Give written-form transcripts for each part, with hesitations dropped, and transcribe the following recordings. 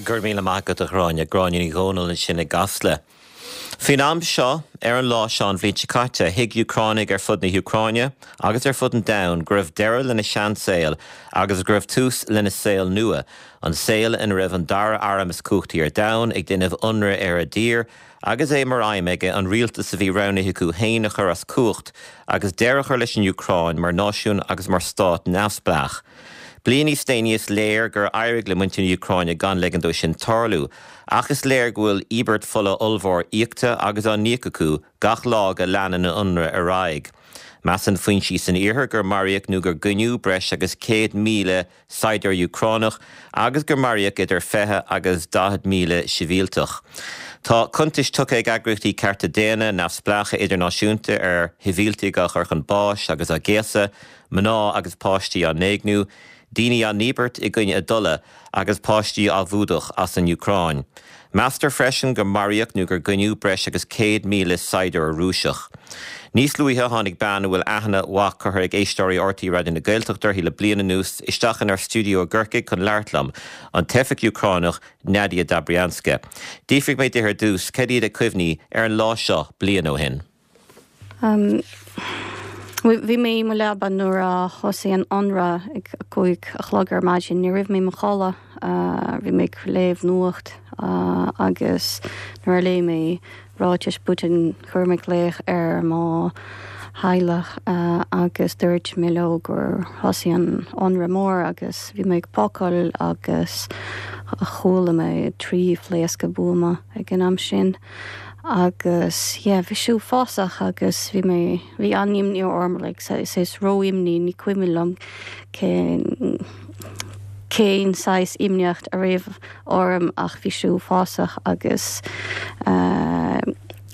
Go raibh míle maith agat, a Ghráinne. Gráinne Ní Dhomhnaill ansin i gCasla. Faoin am seo, ar an lá seo an bhliain seo caite, thuig Úcránaigh ar fud na hÚcráine agus ar fud an domhain go raibh deireadh lena seansaol agus go raibh tús lena saol nua, an saol ina raibh an dara arm is cumhachtaí ar domhan ag déanamh ionradh ar a dtír agus é mar aidhm aige an rialtas a bhí roghnaithe acu féin a chur as cumhacht agus deireadh a chur leis an Úcráin mar náisiún agus mar stát neamhspleách. Bliain níos déanaí is léir gur éirigh le muintir na hÚcráine gan ligean dó sin tarlú, ach is léir go bhfuil íobairt fola ollmhór íoctha agus á n-íoc acu gach lá go leanann an t-ionradh ar aghaidh. Measann foinsí san iarthar gur maraíodh nó gur goineadh breis agus 100,000 saighdiúir Úcránach agus gur maraíodh idir 20 agus 40,000 sibhialtach. Tá cuntais tugtha ag eagraíochtaí cearta daonna neamhspleácha idirnáisiúnta ar shibhialtaigh á gcur chun báis agus á gcéasadh, mná agus páistí á n-éigniú, daoine á ndíbirt i gcoinne a dtola agus páistí á bhfuadach as an Úcráin. Meastar freisin gur maraíodh nó gur goineadh breis agus 100,000 saighdiúir Rúiseach. Níos luaithe tháinig bean a bhfuil aithne mhaith curtha ag éisteoirí RTÉ Raidió na Gaeltachta uirthi le bliain anuas isteach inár stiúideo i gCorcaigh chun labhairt liom, an teifeach Úcránach Nadia Dobrianska. D'fhiafraigh mé di ar dtús cad iad a cuimhní ar an lá seo bliain ó shin. Bhí mé i mo leaba nuair a thosaigh an ionradh ag 5 a chlog ar maidin. Ní raibh mé i mo chodladh, bhí mé ag léamh nuacht agus nuair a léigh mé ráitis Putin chuir mé glaoch ar mo theaghlach agus dúirt mé leo gur thosaigh an ionradh mór agus bhí mé ag pacáil agus chuala mé 3 phléascadh buama ag an am sin. Agus yeah, bhí sé uafásach agus bhí mé, bhí an-imní orm, like, saghas ró-imní, ní cuimhin liom cén, cén saghas imníocht a raibh orm ach bhí sé uafásach agus eh,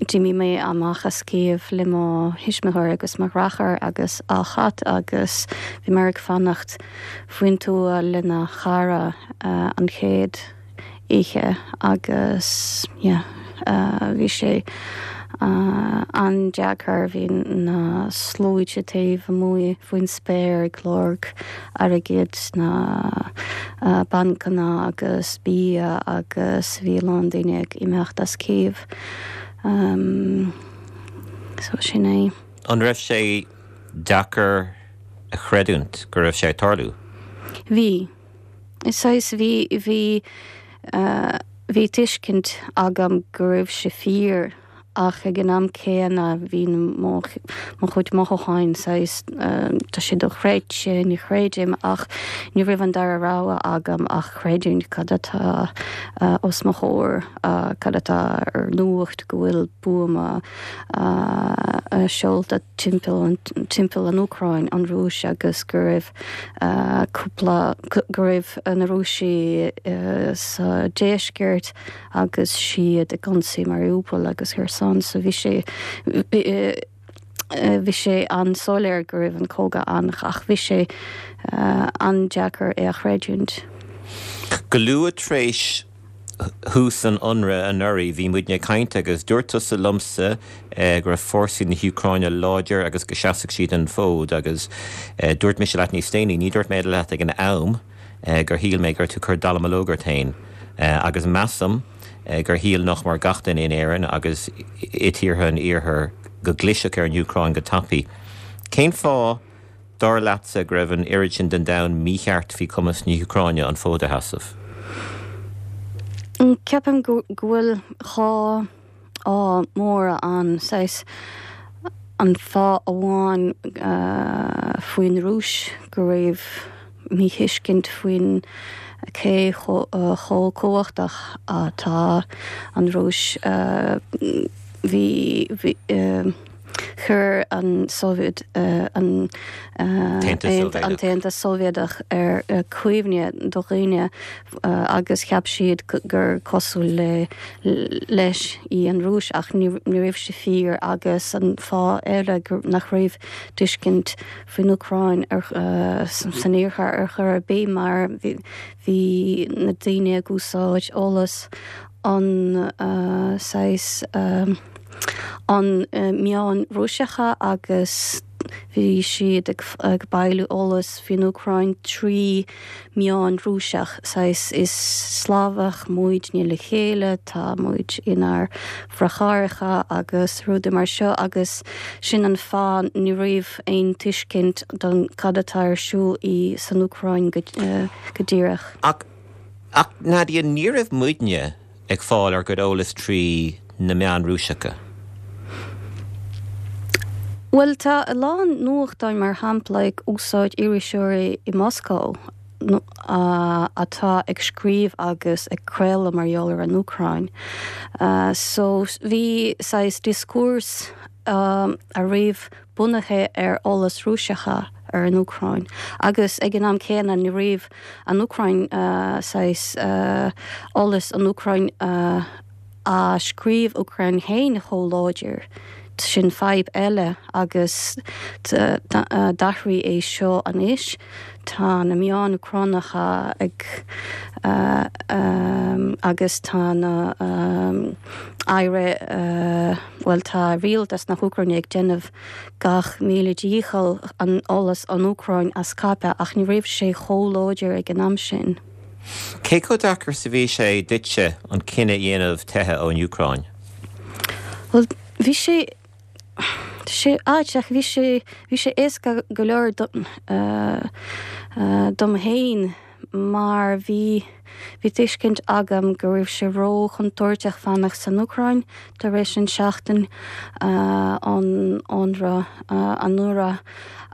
d'imigh mé amach as Cív le mo thuismitheoir agus mo dheartháir agus a chat agus bhí mé ag fanacht faoin tuath lena chara eh, an chéad oíche agus yeah bhí sé an-deacair, bhí na sluaite taobh amuigh faoin spéir ag lorg airgid sna bancanna agus bia agus bhí a lán daoine ag imeacht as Cív. So sin é. An raibh sé deacair a chreidiúint go raibh sé ag tarlú? Bhí. Saghas, bhí, bhí, bhí tuiscint agam go raibh sé fíor ach ag an am céanna bhí mo, mo chuid mothúcháin saghas, tá sé dochreidte, ní chreidim ach ní raibh an dara rogha agam ach creidiúint cad atá os mo chomhair, cad atá ar nuacht go bhfuil buama seolta timpeall, timpeall an Úcráin, an Rúis agus go raibh. cúpla, go raibh na Rúisigh sa deisceart agus siad ag ionsaí Mariupol agus Kherson so bhí sé, bhí sé an-soiléir go raibh an cogadh ann ach bhí sé an-deacair é a chreidiúint. Go luath tar éis thús an ionraidh anuraidh, bhí muidne ag caint agus dúirt tusa liomsa go raibh fórsaí na hÚcráine láidir agus go seasfadh siad an fód agus dúirt mise leat níos déanaí, ní dúirt mé leat ag an am, gur shíl mé go raibh tú ag cur dallamullóg ort féin agus measaim gur shíl nach mór gach duine in Éirinn agus i tíortha an Iarthair go gclisfeadh ar an Úcráin go tapaidh. Cén fáth? Dar leatsa go raibh an oiread sin den domhan mícheart faoi chumas na hÚcráine an fód a sheasamh? Ceapaim go bhfuil dhá fháth móra ann. Saghas an fáth amháin faoin Rúis go raibh míthuiscint faoin cé chomh cumhachtach atá an Rúis. Bhí, bhí. Chuir an Sóivéad, an tAontas Sóivéadach ar cuimhne do dhaoine agus cheap siad gur cosúil le leis í an Rúis ach ní raibh sé fíor agus an fáth eile nach raibh tuiscint faoin Úcráin san iarthar ar chor ar bith mar bhí na daoine ag úsáid eolas an saghas an meáin Rúiseacha agus. Bhí siad ag bailiú eolas faoin Úcráin trí meáin Rúiseach, saghas is Slavach muidne le chéile, tá muid inár ndeartháireacha agus rudaí mar seo agus sin an fáth ní raibh aon tuiscint don cad atá ar siúl i san Úcráin go díreach. Ach, ach Nadia, ní raibh muidne ag fáil ár gcuid eolas trí na meáin Rúiseacha. Bhuel, tá a lán nuachtáin, mar shampla, ag úsáid iriseoirí i Moscó atá ag scríobh agus ag craoladh mar gheall ar an Úcráin. So, bhí saghas discourse a raibh bunaithe ar eolas Rúiseacha ar an Úcráin agus ag an am céanna ní raibh an Úcráin saghas eolas an Úcráin á scríobh Úcráin féin chomh láidir. Sin fadhb eile agus d'athraigh é seo anois. Tá na meáin Úcránacha ag agus tá na aire bhuel tá rialtas na hÚcráine ag déanamh gach míle dícheall an eolas an Úcráin a scaipeadh ach ní raibh sé chomh láidir ag an am sin. Cé chomh deacair is a bhí sé duitse an cinneadh a dhéanamh teitheadh ón Úcráin? Bhuel bhí sé tá sé ait ach bhí sé bhí sé éasca go leor dom féin mar bhí bhí tuiscint agam go raibh sé ró-chontúirteach fanacht san Úcráin tar éis an seachtain an ionradh anuraidh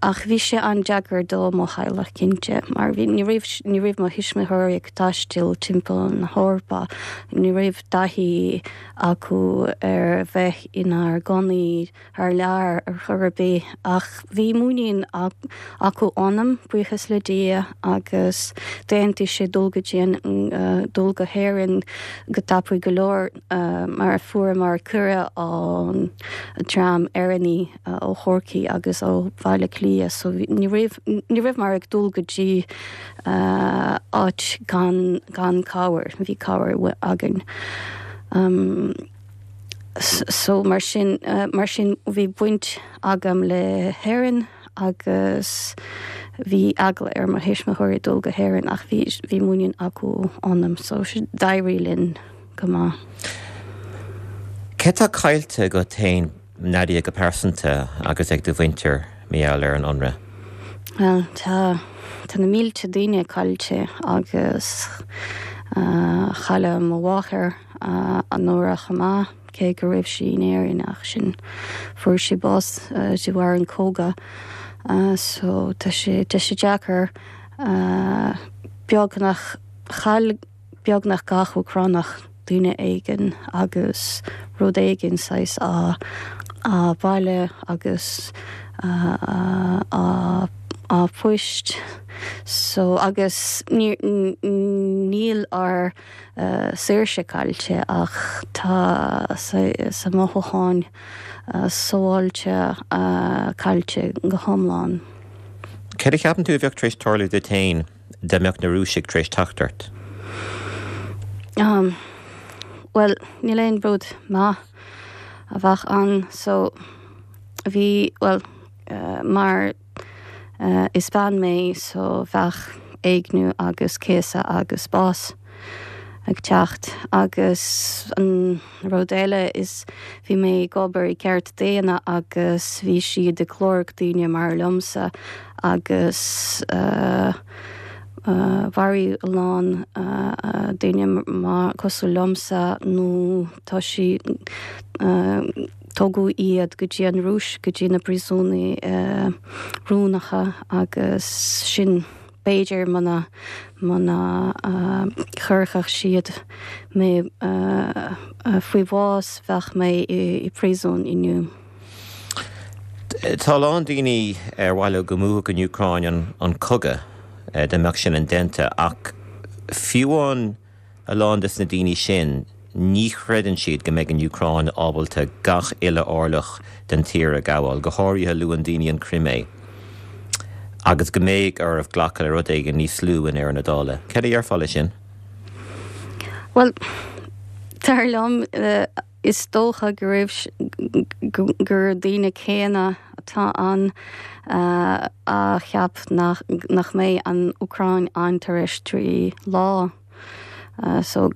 ach bhí sé an-deacair do mo theaghlach cinnte mar bhí ní raibh ní raibh mo thuismitheoirí ag taisteal timpeall na hEorpa ní raibh taithí acu ar bheith inár gcónaí thar lear ar chor ar bith, ach bhí muinín acu ionam, buíochas le Dia, agus d'aontaigh siad dul go dtí an, dul go hÉirinn go tapaidh go leor mar fuaireamar cuireadh ón dream Éireannaí ó Chorcaigh agus ó Bhaile Átha Cliath so ní raibh, ní rabhamar ag dul go dtí áit gan, gan cabhair, bhí cabhair againn. So mar sin, mar sin bhí baint agam le hÉirinn agus bhí eagla ar mo thuismitheoirí dul go hÉirinn ach bhí, bhí muinín acu ionam so d'éirigh linn go maith. Cé tá caillte agat féin Nadia go pearsanta agus ag do mhuintir mar gheall ar an ionradh? Bhuel tá, tá na mílte daoine caillte agus chailleadh mo mháthair anuraidh chomh maith, cé go raibh sí in Éirinn ach sin fuair sí bás de bharr an cogadh. So tá sé, tá sé deacair beagnach, chaill beagnach gach Úcránach duine éigin agus rud éigin saghas a a baile agus a a poist so agus ní níl ár saoirse caillte ach tá sa mothúcháin sábháilte caillte go hiomlán. Céard a cheapann tú a bheadh tar éis tarlú duit féin dá mbeadh na Rúisigh tar éis teacht ort? Bhuel, níl aon rud maith a bheadh ann so bhí, bhuel, mar Is bean mé so bheadh éigniú agus céasadh agus bás ag teacht. Agus an rud eile is bhí mé ag obair i gceart daonna agus bhí siad ag lorg daoine mar liomsa agus mharaigh a lán daoine mar cosúil liomsa nó tá sí Tugadh iad go dtí an Rúis, go dtí na príosúnaí rúnacha agus sin b'fhéidir muna, muna chuirfeadh siad mé faoi bhás bheadh mé i bpríosún inniu. Tá a lán daoine ar mhaith leo go mbuafadh an Úcráin an cogadh, dá mbeadh sin indéanta, ach fiú amháin A lán des na daoine sin, ní chreideann siad go mbeidh an Úcráin ábalta gach uile orlach den tír a ghabháil, go háirithe luann daoine an Chrimé, agus go mbeidh orthu glacadh le rud éigin níos lú i ndeireadh na dála. Céard a dhéarfá leis sin? Bhuel, dar liom, is dócha go raibh, gur daoine céanna. atá ann a cheap nach mbeidh an Úcráin ann tar éis 3 lá so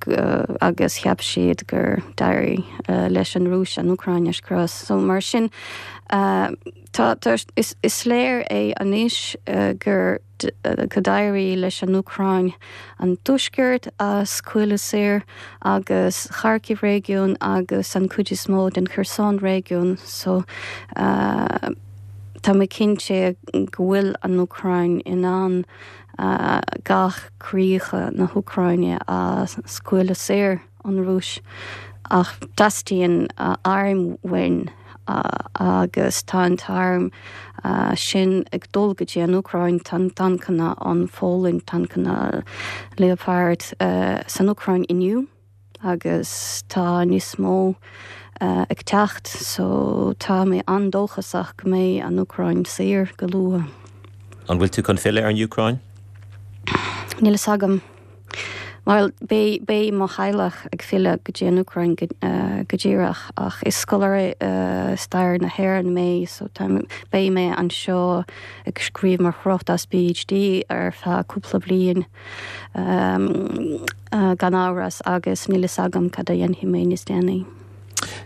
agus cheap siad gur d'éirigh leis an Rúis an Úcráin a scrios. So mar sin tá is léir é anois gur go d'éirigh leis an Úcráin an tuaisceart a scaoileadh saor agus Kharkiv réigiún agus an cuid is mó den Kherson réigiún so tá mé cinnte go bhfuil an Úcráin in ann gach críocha na hÚcráine a scaoileadh saor. ón Rúis ach teastaíonn airm uainn agus tá an t-arm sin ag dul go dtí an Úcráin, tá tancanna ón Pholainn, tancanna Leopard san Úcráin inniu agus tá níos mó ag teacht so tá mé an-dóchasach go mbeidh an Úcráin saor go luath. An bhfuil tú chun filleadh ar an Úcráin? Níl fhios agam. Bhuel, beidh, beidh mo theaghlach ag filleadh go dtí an Úcráin go, go díreach ach is scoláire stair na hÉireann mé so tá, beidh mé anseo ag scríobh mo thráchtas PhD ar feadh cúpla bliain gan amhras agus níl fhios agam cad a dhéanfaidh mé níos déanaí.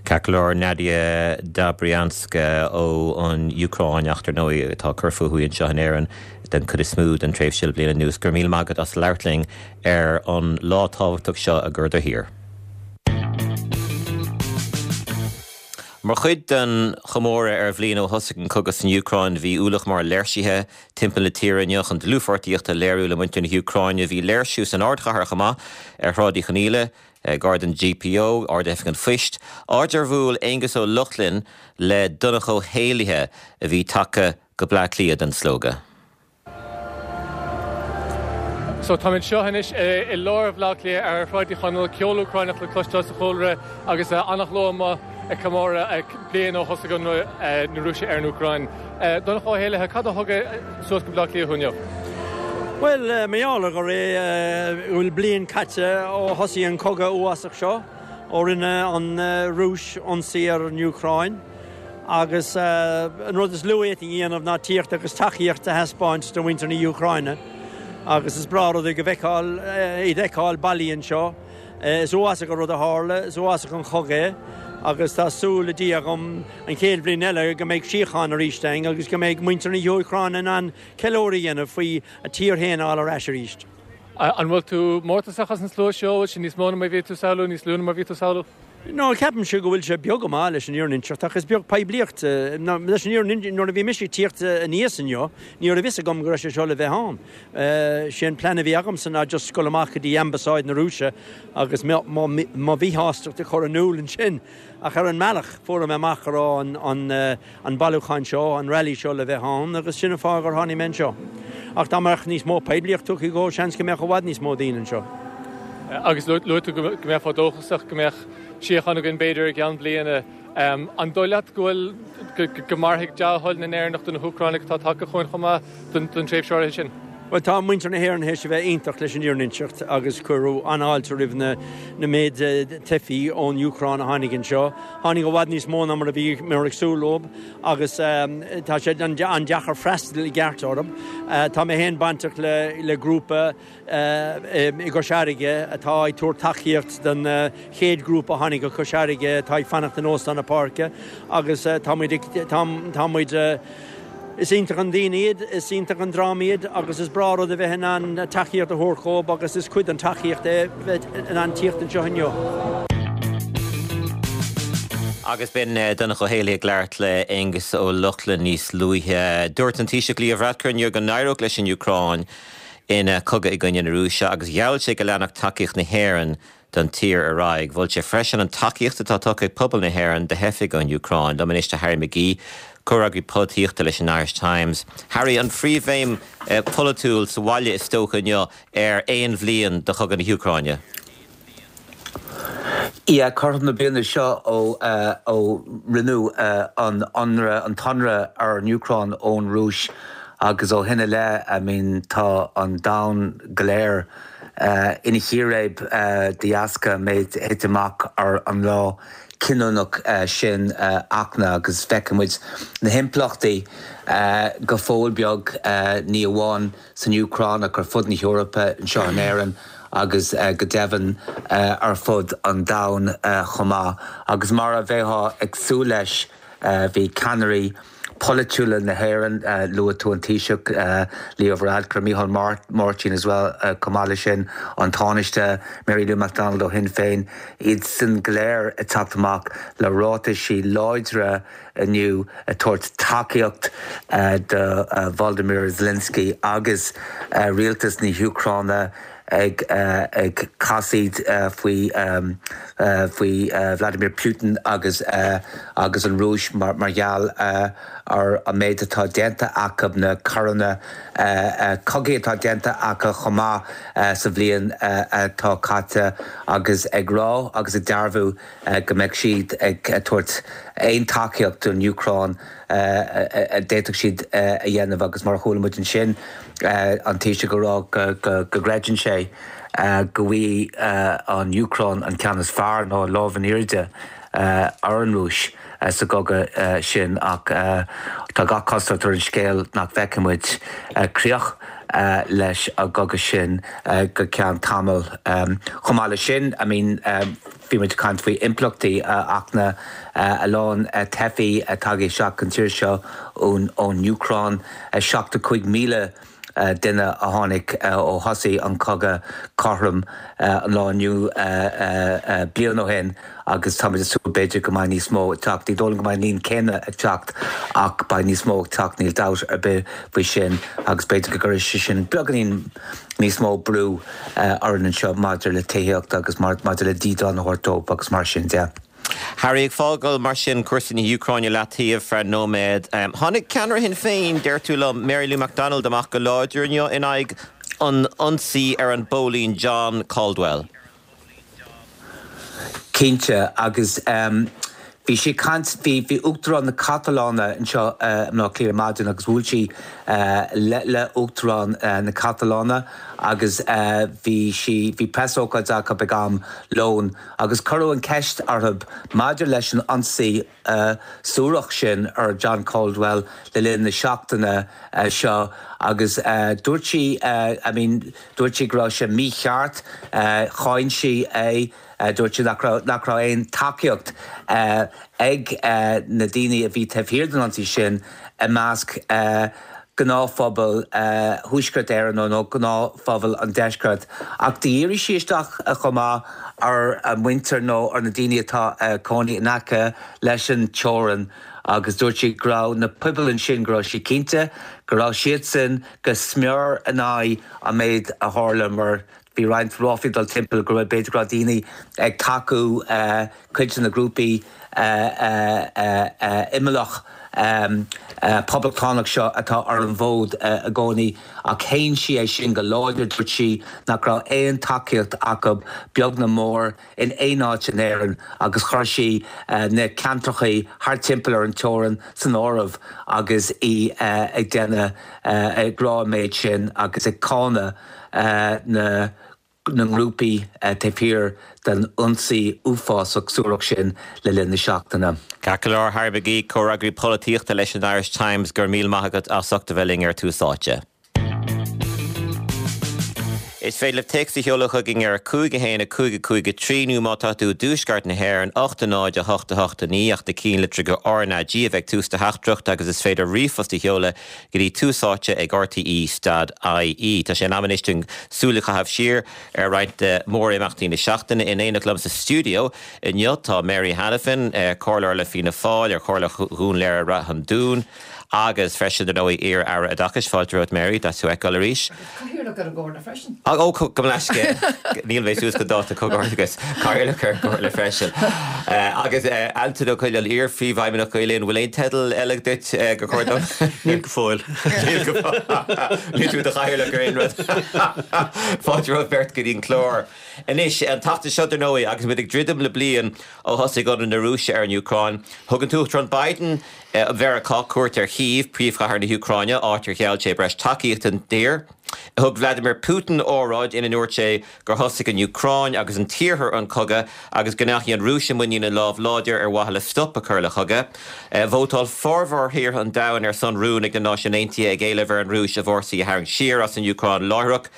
Ceart go leor, Nadia Dobrianska ó an Úcráin ach dar ndóigh atá ag cur fúithi anseo in Éirinn den chuid is mó den tréimhse le bliain anuas. Go raibh míle maith agat as labhairt linn ar an lá tábhachtach seo i gcur do thír. Mar chuid den chomóradh ar bhliain ó thosaigh an cogadh san Úcráin, bhí ualach mór léirsithe timpeall na tíre inniu chun dlúthpháirtíocht a léiriú le muintir na hÚcráine. Bhí léirsiú san ardchathair chomh maith ar Shráid Uí Chonghaile, Gar don GPO, Ard-Oifig an Phoist, áit ar bhuail Aengus Ó Lochlainn le Donncha Ó hÉallaithe a bhí tagtha go Bleá Cliath don slógadh. So táim anseo anois i lár Bhaile Átha Cliath ar Shráid Uí Chonaill, ceol Úcráineach le cloisteáil sa chúlra agus an-shlua amuigh ag comóradh bliain ó thosaigh ionradh na Rúise ar an Úcráin. Donncha Ó hÉallaithe, cad a thug suas go Bleá Cliath thú inniu? Bhuel, mar gheall ar go bhfuil bliain caite ó thosaigh an cogadh uafásach seo, ó rinne an Rúis ionsaí ar an Úcráin, agus an rud is lú a fhéadfainn a dhéanamh ná tíocht agus tacaíocht a thaispeáint do mhuintir na hÚcráine. Agus is breá rud é go bhfeiceáil, iad a fheiceáil bailithe anseo. Is uafásach an rud a tharla, is uafásach an chogadh é agus tá súil le Dia agam an chéad bhliain eile go mbeidh síocháin arís ann agus go mbeidh muintir na hÚcráine in ann ceiliúradh a dhéanamh faoi a tír féin a fháil ar ais arís. An bhfuil tú mórtasach as an slua seo? Bhfuil sé níos mó ná mar a bhí tú ag samhlú, níos lú ná mar a bhí tú ag samhlú? No, ceapaimse go bhfuil sé beag go maith leis an fhírinne a inseacht ach is beag poiblíocht. Leis an fhírinne, nuair a bhí mise ag tíocht aníos inniu, ní raibh fhios agam go raibh sé seo le bheith ann. Sé an plean a bhí agamsa ná just dul amach go dtí Ambasáid na Rúise agus mo mhíshástacht a chur in iúl ansin. Ach ar an mbealach, fuair mé amach go raibh an an bailiúchán seo, an rally seo le bheith ann agus sin an fáth gur tháinig mé anseo. Ach dá mbeadh níos mó poiblíocht tugtha dhó, seans go mbeadh i bhfad níos mó daoine anseo. Agus luaigh tú go mbeifeá dóchasach go mbeadh síocháin againn b'fhéidir i gceann bliana. An dóigh leat go bhfuil, go mairfidh dea-thoil na nÉireannach do na hÚcránaigh atá tagtha chugainn chomh maith don tréimhse áirithe sin? Bhuel, tá muintir na hÉireann théis a bheith iontach leis an fhírinne a inseacht agus cuireadh an-fháilte roimh na na méid teifí ón Úcráin a tháinig anseo. Tháinig i bhfad níos mó ná mar a bhíomar ag súil leo agus tá sé an-deacair freastal i gceart orthu. Tá mé féin bainteach le le grúpa i gCois Fharraige atá ag tabhairt tacaíocht don chéad ghrúpa a tháinig go Cois Fharraige atá ag fanacht in Óstán na Páirce agus tá muid ag, tá muid, is iontach an daoine iad, is iontach an dream iad agus is breá rud a bheith in ann tacaíocht a thabhairt dhóibh agus is cuid den tacaíocht é bheith in ann tíocht anseo inniu. Agus b'in Donncha Ó hÉallaithe ag labhairt le Aengus Ó Lochlainn níos luaithe. Dúirt an Taoiseach Leo Varadkar inniu go n-éireodh leis an Úcráin ina cogadh i gcoinne na Rúise agus gheall sé go leanfadh tacaíocht na hÉireann don tír ar aghaidh. Mhol sé freisin an tacaíocht atá tugtha ag pobal na hÉireann do theifigh ón Úcráin. Liom anois tá Harry McGee, comhfhreagraí polaitíochta leis an Irish Times. Harry, an phríomhbhéim pholaitiúil sa bhaile is dócha inniu ar aon bhliain de chogadh na hÚcráine. Yeah, cothrom na bliana seo ó ó rinneadh an ionradh, an t-ionradh ar an Úcráin ón Rúis agus ó shin i leith, I mean, tá an domhan go léir. ina chíréib de dheasca an méid a thit amach ar an lá cinniúnach sin Fhachtna agus feiceann muid na himpleachtaí go fóill beag, ní amháin san Úcráin ach ar fud na hEorpa, anseo in Éirinn agus go deimhin ar fud an domhain chomh maith. Agus mar a bheifeá ag súil leis, bhí ceannairí polaitiúla na hÉireann, luaigh tú an Taoiseach Leo Varadkar, Micheál Martin as well, chomh maith leis sin an Tánaiste Mary Lou McDonald ó Shinn Féin, iadsan go léir ag teacht amach le ráitisí láidre inniu ag tabhairt tacaíocht do Volodymyr Zelensky agus rialtas na hÚcráine ag ag casaoid faoi faoi Vladimir Putin agus agus an Rúis mar mar gheall ar an méid atá déanta acu, na coireanna cogaidh atá déanta acu chomh maith sa bhliain atá caite agus ag rá agus ag dearbhú go mbeidh siad ag tabhairt aon tacaíocht don Úcráin a d'fhéadfadh siad a dhéanamh agus mar a chuala muid ansin an Taoiseach ag rá go gcreideann sé go bhfaighidh an Úcráin an ceann is fearr nó an lámh in airde ar an Rúis sa gcogadh sin ach tá gach cosúlacht ar an scéal nach bhfeicfidh muid críoch leis an gcogadh sin go ceann tamaill. Chomh maith leis sin, I mean, Bhí muid ag caint faoi impleachtaí a Fhachtna, a lán teifí tagtha isteach an tír seo ón Úcráin, 75,000 duine a tháinig ó thosaigh an cogadh cothrom an lá inniu bliain ó shin agus táimid ag súil b'fhéidir go mbeidh níos mó ag teacht. Ní dóigh liom go mbeidh an líon céanna ag teacht ach beidh níos mó ag teacht, níl dabht ar bith faoi sin agus b'fhéidir go gcuirfidh sé sin beagáinín níos mó brú orainn anseo maidir le tithíocht agus maidir le dídean a thabhairt dóibh agus mar sin de. Harry, ag fágáil mar sin cúrsaí na hÚcráine leataobh feadh nóiméad, tháinig ceannaire Shinn Féin, deir tú liom, Mary Lou McDonald amach go láidir inniu in aghaidh an ionsaí ar an bpóilín John Caldwell. Cinnte, agus bhí sí ag caint, bhí, bhí Uachtarán na Catalóine anseo i mBleá Cliath ar maidin agus bhuail sí le, le Uachtarán na Catalóine agus bhí sí, bhí preasócáid acu ag am lóin agus cuireadh an ceist orthu maidir leis an ionsaí suarach sin ar John Caldwell le linn na seachtaine seo agus dúirt sí, I mean, dúirt sí go raibh sé mícheart, cháin sí é, dúirt sí nach raibh, nach raibh aon tacaíocht ag na daoine a bhí taobh thiar den ionsaí sin i measc gnáthphobal Thuaisceart Éireann nó gnáthphobal an Deiscirt. Ach dhírigh sí isteach chomh maith ar a muintir nó ar na daoine atá ag cónaí in aice leis an teorainn agus dúirt sí go raibh na pobail ansin, go raibh sí cinnte go raibh siadsan go smior in aghaidh an méid a tharla mar bhí roinnt ráflaí ag dul timpeall go raibh, b'fhéidir go raibh daoine ag tacú cuid de na grúpaí imeallach poblachtánach seo atá ar an bhfód i gcónaí ach shéan sí é sin go láidir. Dúirt sí nach raibh aon tacaíocht acu, beag ná mór, in aon áit in Éirinn agus chuir sí na ceantracha thart timpeall ar an teorainn san áireamh agus í ag déanamh, ag rá an méid sin agus ag cáineadh na na ngrúpaí taobh thiar den ionsaí uafásach suarach sin le linn na seachtaine. Ceart go leor, Harry McGee, comhfhreagraí polaitíochta leis an Irish Times, go raibh míle maith agat as ucht a bheith linn ar Tús Áite. Is féidir libh téacs a sheoladh chugainn ar 5 1 5 5 3 nó má tá tú i dtuaisceart na hÉireann, 8 0 8 8 9 ach na cinnlitreacha RnaG a bheith ag tús do theachtaireacht agus is féidir ríomhphost a sheoladh go dtí Tús Áite ag RTÉ dot ie. Tá sé in am anois dúinn súil a chaitheamh siar ar roinnt de mhórimeachtaí na seachtaine. In éineacht liom sa stiúideo inniu tá Mary Hanafin, Comhairleoir le Fianna Fáil ar Chomhairle Dhún Laoghaire-Rath an Dúin agus freisin, dar ndóigh, iar-Aire Oideachais. Fáilte romhat Mary, deas thú a fheiceáil arís. Cathaoirleach ar an gComhairle freisin. Ó, gabh mo leithscéal. Níl mé suas go dáta comhghairdeachas. Cathaoirleach ar an gComhairle freisin. Agus Antain Ó Coileáin, iar-Phríomhfheidhmeannach Gael Linn, bhfuil aon teideal eile duit gur chóir dom? Níl go fóill. Níl go fóill. Níl tú i do chathaoirleach ar aon rud. Fáilte romhaibh beirt go dtí an clár. Anois, an tseachtain seo, dar ndóigh, agus muid ag druidim le bliain ó thosaigh ionradh na Rúise ar an Úcráin, thug an tUachtarán Biden Mheiriceá cuairt ar Chív, príomhchathair na hÚcráine, áit ar gheall sé breis tacaíochta don tír. Thug Vladimir Putin óráid ina ndúirt sé gur thosaigh an Úcráin agus an tIarthar an cogadh agus go ndeachaigh an Rúis i muinín a lámh láidir ar mhaithe le stop a chur le cogadh. Vótáil formhór thíortha an domhain ar son rún ag na Náisiúin Aontaithe ag éileamh ar an Rúis a bhfórsaí a tharraingt siar as an Úcráin láithreach.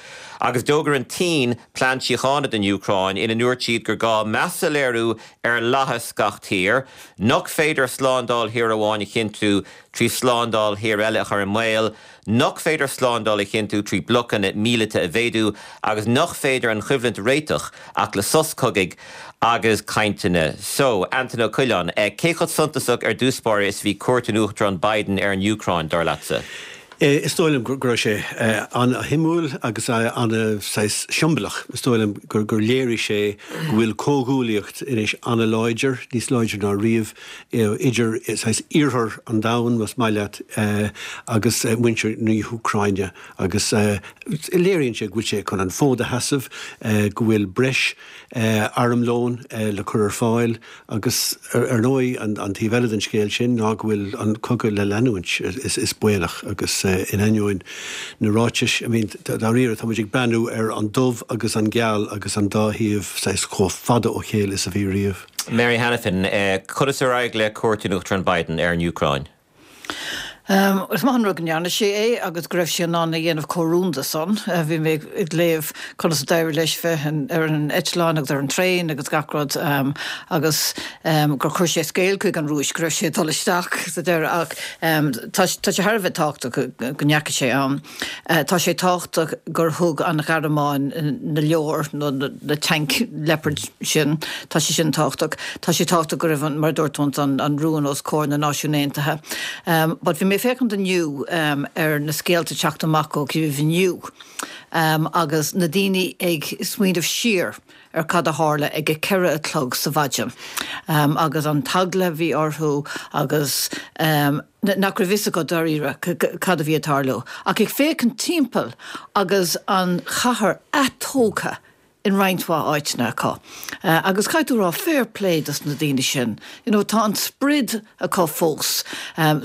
Agus d'fhógair an tSín plean síochána don Úcráin ina ndúirt siad gur gá meas a léiriú ar fhlaitheas gach tír, nach féidir slándáil thír amháin a chinntiú trí slándáil thír eile a chur i mbaol. nach féidir slándáil a chinntiú trí blocanna míleata a mhéadú agus nach féidir an choimhlint a réiteach ach le sos cogaidh agus cainteanna. So, Antaine Ó Coileáin, cé chomh suntasach ar dtús báire is a bhí cuairt an Uachtaráin Biden ar an Úcráin, dar leatsa? Is dóigh liom go raibh sé an-shuimiúil agus an-saghas siombalach. Is dóigh liom gur léirigh sé go bhfuil comhghuaillíocht anois an-láidir, níos láidre ná riamh, idir saghas iarthar an domhain, más maith leat, agus muintir na hÚcráine agus léiríonn sé go bhfuil sé chun an fód a sheasamh, go bhfuil breis armlóin le cur ar fáil agus ar ndóigh an taobh eile den scéal sin ná go bhfuil an cogadh le leanúint, is baolach agus in ainneoin na ráitis, I mean dáiríre tá muid ag breathnú ar an dubh agus an geal agus an dá thaobh saghas chomh fada ó chéile is a bhí riamh. Mary Hanafin, Conas ar éirigh le cuairt an Uachtaráin Biden ar an Úcráin? Is maith an rud go ndearna sé é agus go raibh sé in ann a dhéanamh chomh rúnda san. Bhí mé ag léamh conas a d'éirigh leis bheith ar an eitleán agus ar an traein agus gach rud agus gur chuir sé scéal chuig an Rúis go raibh sé ag dul isteach sa deireadh ach tá sé thar a bheith tábhachtach go ndeachaigh sé ann. Tá sé tábhachtach gur thug an Ghearmáin na leoir nó na tanc Leopard sin. Tá sé sin tábhachtach. Tá sé tábhachtach go raibh, mar a dúirt tú ansan, an rún os comhair na Náisiún Aontaithe. But bhí mé ag féachaint inniu ar na scéalta ag teacht amach ó Kyiv inniu agus na daoine ag smaoineamh siar ar cad a tharla ag a 4 a chlog sa mhaidin agus an t-eagla a bhí orthu agus nach raibh fhios acu dáiríre cad a bhí ag tarlú. Ach ag féachaint timpeall agus an chathair atógtha in roinnt mhaith áiteanna acu. Agus caithfidh tú a rá fair play dos na daoine sin. You know tá an sprid acu fós.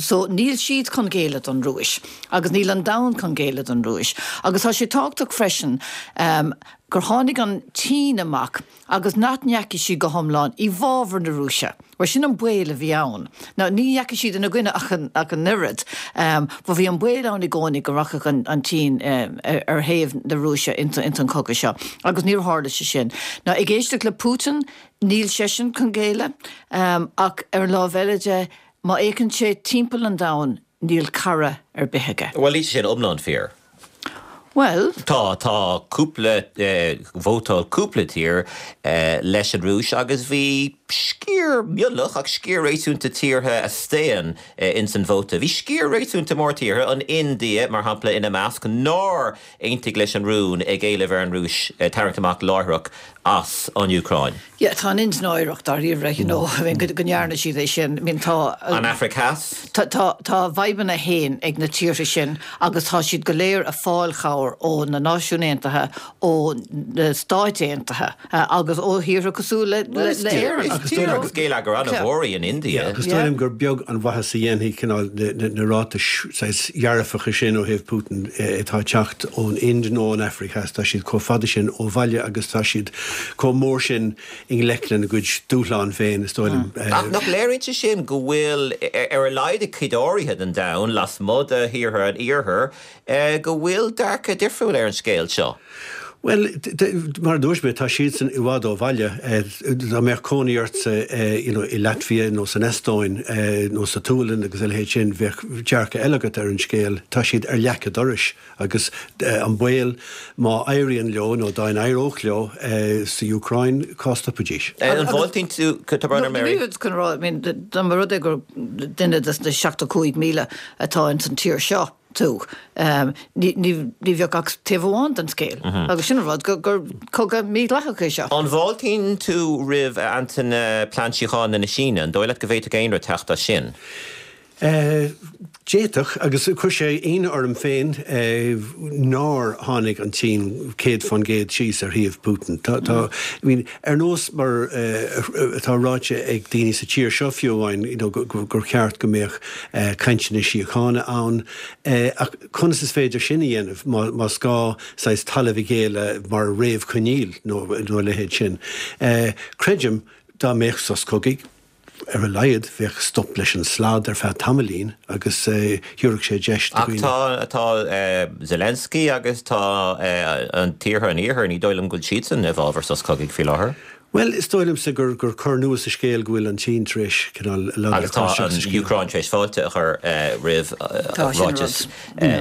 So níl siad chun géilleadh don Rúis agus níl an domhan chun géilleadh don Rúis. Agus tá sé tábhachtach freisin gur tháinig an tSín amach agus nach ndeachaigh siad go hiomlán i bhfabhar na Rúise, mar sin an baol a bhí ann. Now, ní dheachaigh siad ina gcoinne ach an ach an oiread, but bhí an baol ann i gcónaí go rachadh an an tSín ar thaobh na Rúise ins ins an chogadh seo, agus níor tharla sé sin. Now, ag éisteacht le Putin, níl seisean chun géilleadh, ach ar an lámh eile de, má fhéachann sé timpeall an domhain, Níl cara ar bith aige. Bhuel, níl sé sin iomlán fíor. Bhuel. Tá, tá cúpla, vótáil cúpla tír leis an Rúis agus bhí sciar mionlach ach sciar réasúnta tíortha a staon ins an vóta. Bhí sciar réasúnta mór tíortha, an India mar shampla ina measc, nár aontaigh leis an rún ag éileamh ar an Rúis tarraingt amach láithreach as an Úcráin. Yeah, tá an Ind náireach dáiríre, you know, I mean, go ndearna siad é sin. I mean, tá. An Afraic Theas? Tá, tá, tá a bhfadhbanna féin ag na tíortha sin agus tá siad go léir ag fáil chabhair ó na Náisiúin Aontaithe, ó na Stáit Aontaithe agus ó thíortha cosúil le, le, le Éirinn. Is tír agus géilleagar an-mhór í an India. Yeah, agus dóigh liom gur beag an mhaitheas a dhéanfaidh cineál na, na, na ráitis saghas dhearfacha sin ó thaobh Putin atá ag teacht ón Ind nó ón Afraic Theas. Tá siad chomh fada sin ó bhaile agus tá siad chomh mór sin i ngleic lena gcuid dúshlán féin, is dóigh liom. Ach nach léiríonn sé sin go bhfuil, ar a laghad i gcuid áirithe den domhan, lasmuigh de thíortha an Iarthair, go bhfuil dearcadh difriúil ar an scéal seo? Bhuel, mar a dúirt mé, tá siadsan i bhfad ó bhaile. Dá mbeadh cónaí ortsa you know i Latvia nó san Eastóin nó sa tSualainn agus a leithéid sin, bheadh dearcadh eile agat ar an scéal. Tá siad ar leac an dorais. Agus an baol, má éiríonn leo, nó dá n-éireodh leo sa Úcráin, cá stopfaidís? An bhfáiltíonn tú, tá brón orm, Mary. Ní raibh chun a rá, I mean, dá mba rud é gur duine de na 75,000 atá ins an tír seo tú, ní bheadh ach taobh amháin den scéal. Agus sin an rud, gur cogadh mídhleathach é seo. An bhfáiltíonn tú roimh, a Antaine, plean síochána na Síne? An dóigh leat go bhféadfadh aon rud teacht as sin? D'fhéadfadh, agus chuir sé ionadh orm féin nár tháinig an tSín 100% síos ar thaobh Putin. Tá, tá, I mean, ar nós mar atá ráite ag daoine sa tír seo fiú amháin, you know, gur cheart go mbeadh cainteanna síochána ann, ach conas is féidir sin a dhéanamh más gá saghas talamh a ghéilleadh mar réamhchoinníoll nó a leithéid sin? Creidim dá mbeadh sos cogaidh, Ar a laghad, bheadh stop leis an slad ar feadh tamaillín agus thabharfadh sé deis do dhaoine. Ach tá Zelensky agus tá an tíortha an Iarthair, ní dóigh liom go bhfuil siadsan i bhfabhar sos cogaidh faoi láthair. Bhuel, is dóigh liomsa gur cor nua sa scéal go bhfuil an tSín tar éis cineál lag a chur isteach sa scéal. Agus tá an Úcráin tar éis fáilte a chur roimh ráiteas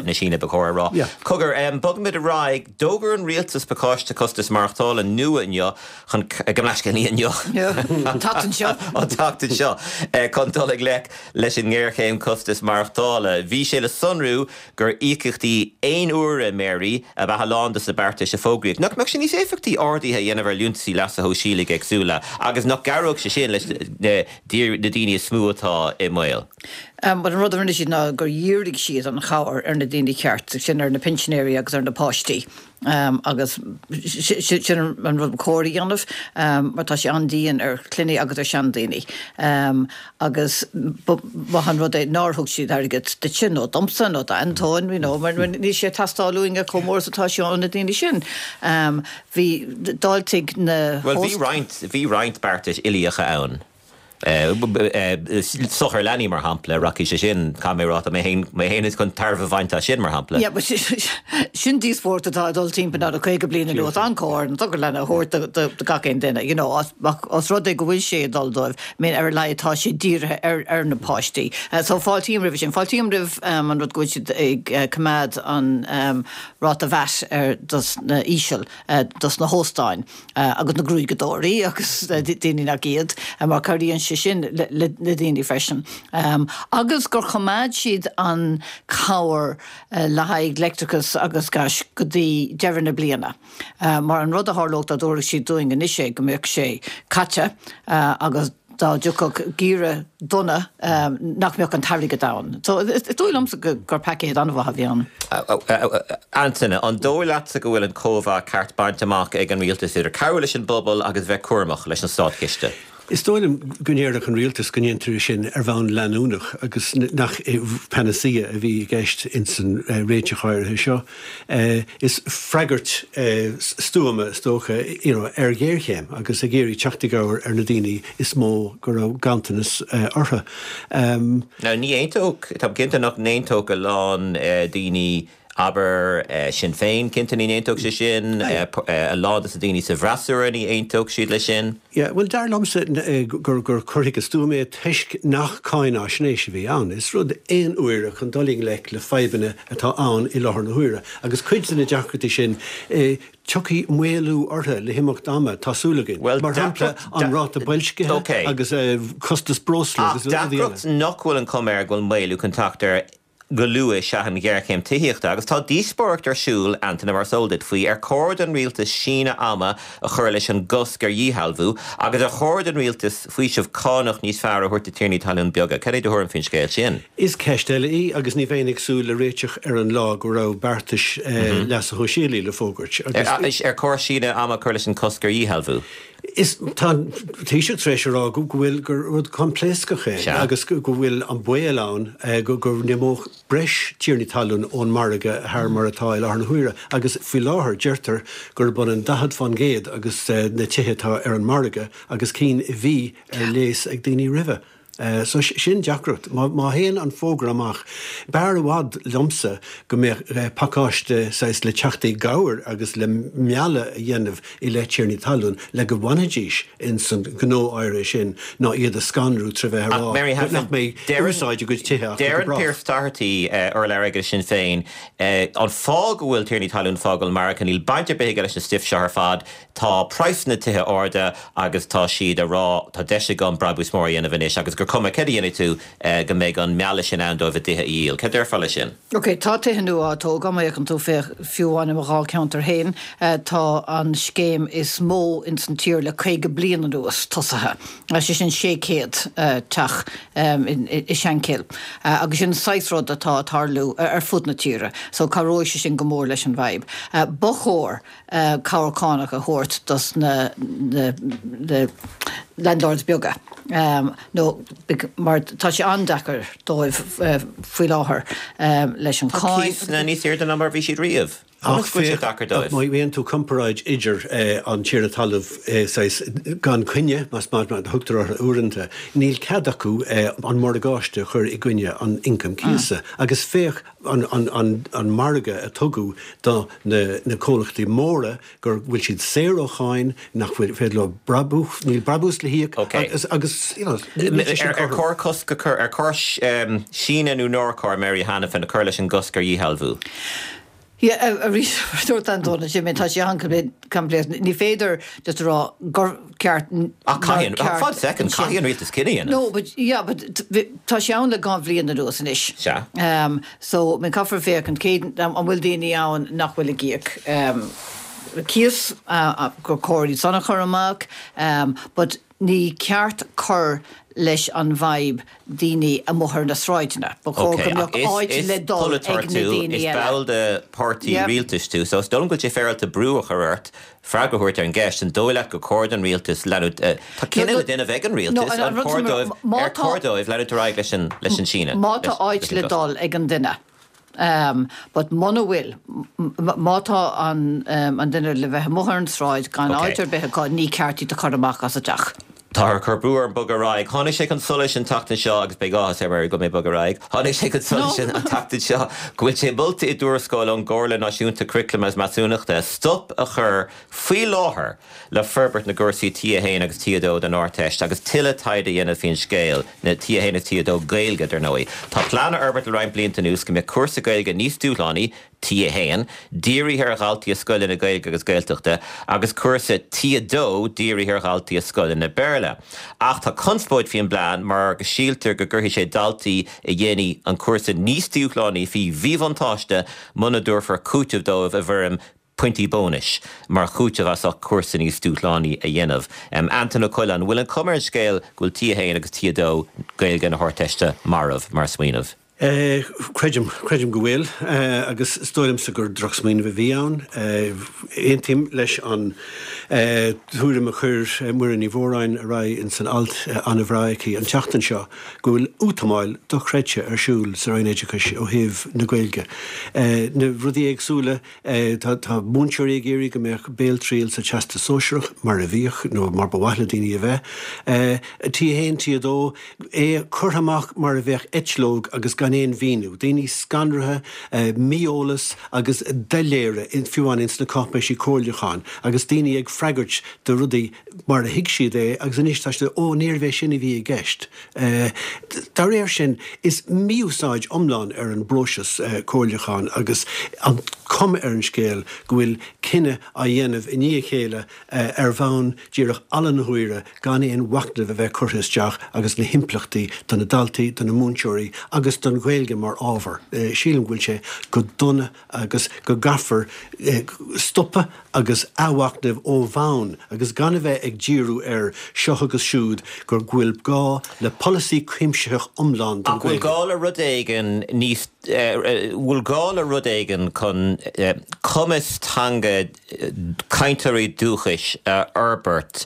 na Síne, ba chóir a rá. Cogar, bogfaimid ar aghaidh. D'fhógair an rialtas pacáiste costas maireachtála nua inniu chun, gabh mo leithscéal, ní inniu, An tseachtain seo. An tseachtain seo, chun dul i ngleic leis an ngéarchéim costas maireachtála. Bhí sé le sonrú gur íocaíochtaí aon uaire, Mary, ab ea a lán de na beartais a fógraíodh. Nach mbeadh sé níos éifeachtaí arduithe a dhéanamh ar liúntaisí leasa shóisialaigh éagsúla agus nach gcabhródh sé sin leis na daoine is mó atá i mbaol? Bhuel, an rud a rinne siad ná gur dhírigh siad an chabhair ar na daoine ceart, sin ar na pinsinéirí agus ar na páistí. Agus sin an rud ba chóir a dhéanamh mar tá sé an-dian ar chlanna agus ar sheandaoine. Agus ba mhaith an rud é nár thug siad airgead duitse nó domsa nó d'Antóin, you know, mar níl sé ag teastáil uainne chomh mór is atá sé ó na daoine sin. Bhí, d'fháiltigh na. Bhuel, bhí roinnt, bhí roinnt beartais uilíocha ann. Sochar leanaí, mar shampla, rachaidh sé sin, caithfidh mé a rá, tá mé féin, mé féin chun tairbhe a bhaint as sin, mar shampla. Yeah, but sin díospóireacht atá ag dul timpeall le 50 bliain anuas, an cóir an sochar leanaí a thabhairt do gach aon duine, you know, os rud é go bhfuil sé ag dul dóibh, I mean, ar a laghad tá sé dírithe ar, ar na páistí. So fáiltím roimhe sin. Fáiltím roimh an rud go bhfuil siad ag coimeád an ráta VAT ar dos na íseal, dos na hóstáin. agus na gruaigeadóirí agus daoine nach iad, mar cabhraíonn sé sin le daoine freisin. Agus gur choimeád siad an chabhair le haghaidh leictreachas agus gais go dtí deireadh na bliana. Mar an rud a tharlódh dá dtabharfadh siad dúinn anois é go mbeadh sé caite agus dá dtiocfadh geimhreadh dona nach mbeadh an t-airgead ann. So is dóigh liomsa gur paicéad an-mhaith a bhí ann. Antaine, an dóigh leatsa go bhfuil an cóimheá ceart bainte amach ag an rialtas idir cabhrú leis an bpobal agus bheith cúramach leis an státchiste? Is dóigh liom go ndéarfadh an rialtas go ndéantar é sin ar bhonn leanúnach agus nach panacea a bhí i gceist ins an réiteach áirithe seo. Is freagairt stuama, is dócha, you know, ar ghéarchéim agus ag iarraidh teacht i gcabhair ar na daoine is mó go raibh ganntanas orthu. Now ní aontódh, táim cinnte nach n-aontódh a lán daoine, abair, Sinn Féin, cinnte ní n-aontódh sé sin, a lán de na daoine sa bhfreasúra ní aontódh siad leis sin. Yeah, bhuel, dar liomsa gur cur chuige stuama é toisc nach cáináisnéis a bhí ann. Is rud aon uaire chun dul i ngleic le fadhbanna atá ann i láthair na huaire. Agus cuid de na deacrachtaí sin, tiocfaidh maolú orthu le himeacht ama, tá súil againn. Mar shampla, an ráta boilscithe agus costas breosla agus rudaí eile. Ach deacracht nach bhfuil an chuma air go bhfuil maolú chun teacht air go luath is ea an ghéarchéim tithíochta agus tá díospóireacht ar siúl, Antaine, mar is eol duit, faoi ar chóir don rialtas síneadh ama a chur leis an gcosc ar dhíshealbhú agus ar chóir don rialtas faoiseamh cánach níos fearr a thabhairt do tiarnaí talún beaga. Cad é do thuairim faoin scéal sin? Is ceist eile í agus ní bheinn ag súil le réiteach ar an lá go raibh beartais leasa shóisialaigh le fógairt agus. Ar chóir síneadh ama a chur leis an cosc ar dhíshealbhú? Is tá an Taoiseach tar éis a rá go bhfuil gur rud coimpléascach é agus go bhfuil an baol ann go go n-imeodh breis tiarnaí talún ón margadh thar mar atá i láthair na huaire agus faoi láthair deirtear gurb ionann 40% agus na tithe atá ar an margadh agus cinn a bhí ar léas ag daoine roimhe. So sin deacracht. Má théann an fógra amach, b'fhearr i bhfad liomsa go mbeadh pacáiste saghas le teacht i gcabhair agus le mealladh a dhéanamh i leith tiarnaí talún le go bhfanfaidís ins an gnó áirithe sin ná iad a scanrú tré bheith a rá nach mbeidh úsáid a gcuid tithe acu go Deireann brách. Pearse Doherty, urlabhraí aige Sinn Féin, an fáth go bhfuil tiarnaí talún ag fágáil an margadh, níl baint ar bith aige leis an stuif seo ar fad, Tá praghsanna tithe arda agus tá siad a rá tá deis agam brabús mór a dhéanamh anois agus gur. gur cuma céard a dhéanfaidh tú go mbeidh an mealladh sin ann dóibh a dtithe a dhíol. Céard a déarfá leis sin? Ok, tá tithe nua á dtógáil, má fhéachann tú, féach, fiú amháin i mo dháilcheantar féin, tá an scéim is mó ins an tír le 50 bliain anuas tosaithe, sé sin 600 teach i Shankill, agus sin an saghas rud atá ag tarlú ar fud na tíre, so cabhróidh sé sin go mór leis an bhfadhb. Ba chóir cabhair cánach a thabhairt dos na landlords beaga nó mar tá sé an-deacair dóibh faoi láthair leis an Tá cáin. cíosanna níos airde ná mar a bhí siad riamh. Ach féach, má dhéanann tú comparáid idir an tiarna talaimh saghas gan coinne, más maith mar a thugtar orthu uaireanta, níl cead acu an morgáiste a chur i gcoinne an ioncaim cíosa. Agus féach an margadh a tugadh do na comhlachtaí móra go bhfuil siad saor ó cháin, nach bhfuil féidir leo brabús, níl brabús le híoc agus, agus you know, níl sé sin Ar cothrom. chóir cosc a chur, ar chóir síneadh nó nár chóir Mary Hanafin a chur leis an gcosc ar dhíshealbhú? Yeah, arís, mar a dúirt Antóin ansin, tá sé an-choimpléasc. Ní féidir just a rá gur ceart, Ach nár caithfidh, ceart fad second, ansin. caithfidh an rialtas cinneadh a dhéanamh. No, but, yeah, but tá sé ann le dhá bhliain anuas anois. Sea. So, I mean, caithfear féachaint cé, an bhfuil daoine ann nach bhfuil ag íoc cíos, gur cóir iad san a chur amach, but ní ceart cur leis an bhfadhb daoine amuigh ar na sráideanna. Ba chóir Ok, go ach mbeadh is, áit is le dul polaiteoir ag na tú, daoine is eile. ball de pháirtí Yeah. rialtais tú, so is dóigh liom go bhfuil sé féaráilte brú a chur ort freagra a thabhairt ar an gceist, an dóigh leat gur cóir don rialtas leanúint, tá No, cinneadh no, le déanamh ag an no, rialtas, an, an an rud cóir sin, dóibh, má ar tá, chóir dóibh leanúint ar aghaidh leis an, leis an síneadh, má tá leis, áit leis an le gcosc? dul ag an duine, but muna bhfuil, má tá an, an duine le bheith amuigh ar an tsráid gan Ok. áit ar bith acu, ní ceart iad a chur amach as a dteach. Táthar ag cur brú orm bogadh ar aghaidh. Tháinig sé chun solais an tseachtain seo, agus beidh áthas ar Mary go bhfuil mé ag bogadh ar aghaidh, tháinig sé chun solais No. an tseachtain seo go bhfuil sé molta i dtuarascáil ón gComhairle Náisiúnta Curaclaim agus Measúnachta stop a chur faoi láthair le forbairt na gcúrsaí T1 agus T2 don Ardteist agus tuilleadh taighde a dhéanamh faoin scéal, na T1 agus T2 Gaeilge, dar ndóigh. Tá plean á fhorbairt le roinnt blianta anuas go mbeadh cúrsa Gaeilge níos dúshlánaí, T1, dírithe ar dhaltaí i scoileanna Gaeilge agus Gaeltachta, agus cúrsa T2 dírithe ar dhaltaí i scoileanna Béarla. Ach tá conspóid faoin bplean mar go síltear go gcuirfidh sé daltaí a dhéanfaidh an cúrsa níos dúshlánaí faoi mhíbhuntáiste muna dtabharfar cúiteamh dóibh i bhfoirm pointí bónais mar chúiteamh as ucht cúrsa níos dúshlánaí a dhéanamh. Antain Ó Coileáin, an bhfuil an chuma ar an scéal go bhfuil T1 agus T2 Gaeilge na hArdteiste marbh mar smaoineamh? Creidim, creidim go bhfuil, agus is dóigh liomsa gur drochsmaoineamh a bhí ann. Aontaím leis an tuairim a chuir Muireann Ní Mhóráin ar aghaidh ins an alt an-bhreá aici an tseachtain seo, go bhfuil útamáil dochreidte ar siúl sa Roinn Oideachais ó thaobh na Gaeilge. Na rudaí éagsúla Tá múinteoirí ag iarraidh go mbeadh béaltriail sa Teastas Sóisearach mar a bhíodh nó mar ba mhaith le daoine a bheith. T1, T2, é curtha amach mar a bheadh eitleog agus gan aon mhíniú. Daoine scanraithe, mí-eolas agus doiléire, fiú amháin ins na cáipéisí comhairliúcháin agus daoine ag freagairt do rudaí mar a thuig siad é agus anois tá siad, ó níorbh é sin a bhí i gceist. Dá réir sin, is mí-úsáid iomlán ar an bpróiseas comhairliúcháin agus an cuma ar an scéal go bhfuil cinneadh á dhéanamh i ndiaidh a chéile ar bhonn díreach ala na huaire gan aon mhachnamh a bheith curtha isteach agus na himpleachtaí do na daltaí, do na múinteoirí agus don Ghaeilge mar ábhar. Sílim go bhfuil sé go dona agus go gcaithfear stopadh agus athmhachnamh ó bhonn agus gan a bheith ag díriú ar seo agus siúd gur go bhfuil gá le polasaí cuimsitheach iomlán don Ach bhfuil Ghaeilge. gá le rud éigin níos, bhfuil gá le rud éigin chun cumas teanga cainteoirí dúchais a fhorbairt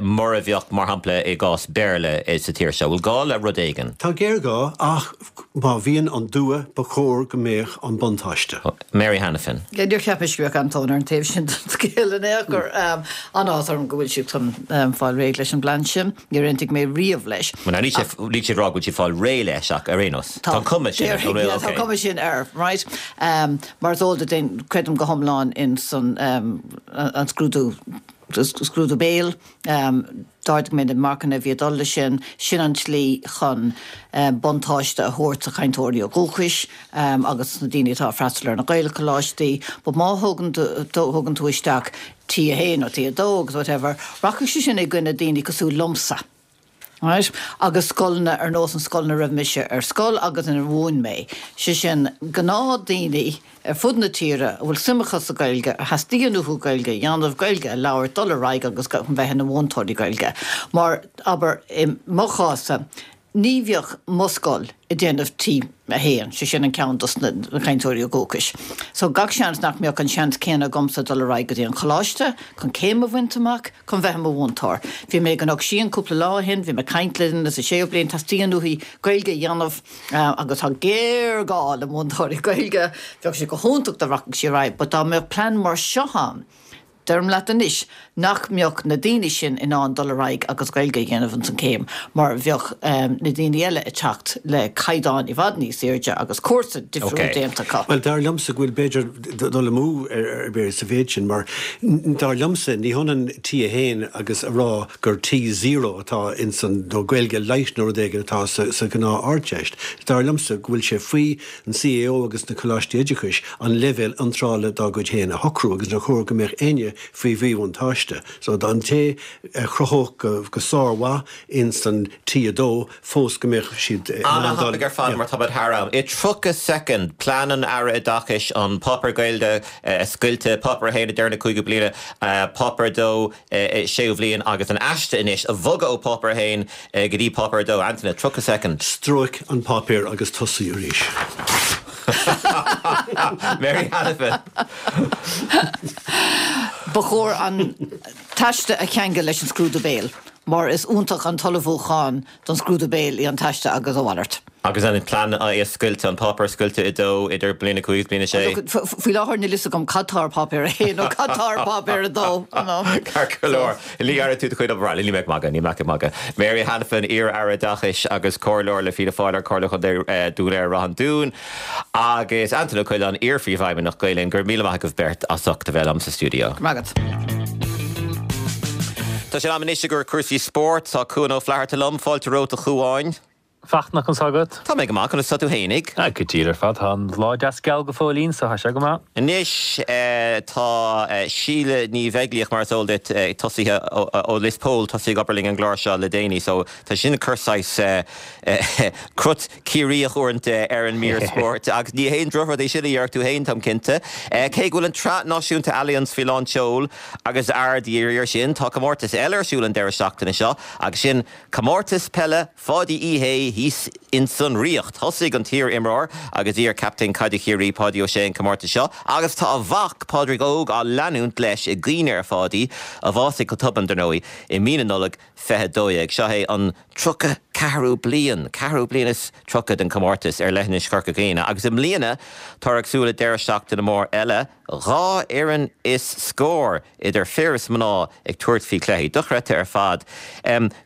mar a bheadh, mar shampla, i gcás Béarla sa tír seo? Bhfuil gá le rud éigin? Tá géarghá, ach má bhíonn an dua, ba chóir go mbeadh an buntáiste. Mary Hanafin. Níor cheap mise go mbeadh Antóin ar an taobh sin den scéal in aon chor. An-áthas orm go bhfuil siad chun fáil réidh leis an bplean sin. Níor aontaigh mé riamh leis. Bhuel, níl sé, níl siad ag rá go bhfuil siad ag fáil réidh leis ach ar aon nós, tá an cuma sin air. Déarfainn, yeah, tá an cuma sin air, right? Mar is eol duit, creidim go hiomlán ins an scrúdú scrúdú béil. D'ardaigh mé na marcanna a bhí ag dul leis sin. Sin an tslí chun buntáiste a thabhairt do chainteoirí ó dhúchais agus na daoine atá ag freastal ar na Gaelcholáistí. But má thugann thugann tú isteach T1 nó T2 agus whatever, rachaidh sé sin i gcoinne daoine cosúil liomsa. Right? Agus scoileanna ar nós an scoil ina raibh mise ar scoil agus inar mhúin mé, sé sin gnáthdaoine ar fud na tíre a bhfuil suim acu sa Ghaeilge, a theastaíonn uathu Gaeilge a dhéanamh, Gaeilge a labhairt, dul ar aghaidh agus bheith ina mhúinteoirí Gaeilge. Mar, abair, i mo chás-sa, ní bheadh mo scoil ag déanamh T1, sé sin an ceann dos na cainteoirí dúchais. So gach seans nach mbeadh an seans céanna agamsa dul ar aghaidh go dtí an choláiste chun céim a bhaint amach, chun bheith i mo mhúinteoir. Bhí mé i gCnoc Síon cúpla lá ó shin, bhí mé ag caint le duine sa séú bliain, teastaíonn uaithi Gaeilge a dhéanamh agus tá géarghá le múinteoirí Gaeilge, bheadh sé go hiontach dá rachadh sí ar aghaidh but dá mbeadh plean mar seo ann, Deirim leat anois nach mbeadh na daoine sin in ann dul ar aghaidh agus Gaeilge a dhéanamh ins an céim mar bheadh na daoine eile ag teacht le caighdeán i bhfad níos airde agus cúrsa difriúil déanta acu. Bhuel, dar liomsa go bhfuil b'fhéidir dul amú ar bith sa mhéid sin mar dar liomsa ní hionann T1 agus a rá gur T0 atá ins an, nó Gaeilge light nó rud éigin atá sa ghnáth Ardteist. Dar liomsa go bhfuil sé faoi an CAO agus na Coláistí Oideachais an leibhéal iontrála dá gcuid féin a shocrú agus nár chóir go mbeadh éinne faoi mhíbhuntáiste. So an té a chruthódh go sármhaith ins an T2 fós go mbeadh siad in ann dul. An-thapaidh ar fad mar táimid thar am. I 30 soicind, plean an Aire Oideachais an páipéar Gaeilge a scoilteadh, páipéar 1 ag deireadh na cúigiú bliana, páipéar 2, séú bhliain agus an aiste anois a bhogadh ó Páipéar 1 go dtí Páipéar 2. Antaine, 30 soicind. Stróic an páipéar agus tosaigh arís. Mary Hanafin. Ba chóir an t-aiste a cheangal leis an scrúdú béil mar is iontach an t-ullmhúchán don scrúdú béil í an t-aiste agus a mhalairt. Agus an plean é a scoilteadh, an páipéar a scoilteadh i dó idir bliain 5 agus bliain 6? Faoi láthair níl fhios agam cad tá ar Páipéar 1 nó cad tá ar Páipéar 2. Ceart go leor. Ní dhearna tú do chuid obair. Níl mé ag magadh, níl mé ag magadh. Mary Hanafin, iar-Aire Oideachais agus Comhairleoir le Fianna Fáil ar Comhairle Chontae Dhún Laoghaire-Ráth an Dúin agus Antaine Ó Coileáin, iar-Phríomhfheidhmeannach Gael Linn, go raibh míle maith agaibh beirt as ucht a bheith liom sa stiúideo. Go raibh maith agat. Tá sé in am anois i gcomhair cúrsaí spóirt. Tá Cuan Ó Flatharta liom. Fáilte romhat a Chuáin. Fachtna, conas tá agat? Tá mé go maith, conas tá tú fhéinig? Ah, go diail ar fad, tá an lá deas geal go fóillín, so tá sé go maith. Anois tá Síle Ní Bheaglaoich, mar is eol duit, tosaithe ó Lios Póil, tosaithe ag obair linn an gclár seo le déanaí, so tá sin ag cur saghas crut Ciarraíoch uaireanta ar an mír spóirt, agus ní haon drochrud é sin a déarfadh tú féin, táim cinnte. Cé go bhfuil an tSraith Náisiúnta Allianz faoi lán tseoil agus aird dhírithe air sin, tá comórtas eile ar siúl an deireadh seachtaine seo, agus sin Comórtas Peile Pháidí Uí Shé thíos insan Ríocht. Thosaigh an t-iar-imreoir agus iar-chaptaen caide Chiarraí, Páidí Ó Sé an comórtas seo agus tá a mhac, Pádraig Óg, á leanúint leis i gcuimhne ar Pháidí, a bhásaigh go tobann, dar ndóigh, i mí na Nollag 2012. Seo é an 34ú bliain, ceathrú bliain is 30 den chomórtas ar leithinis Chorca Dhuibhne agus i mbliana táthar ag súil le deireadh seachtaine mór eile, 2 fhoireann is scór, idir fir is mná, ag tabhairt faoi chluichí. Dochreidte ar fad.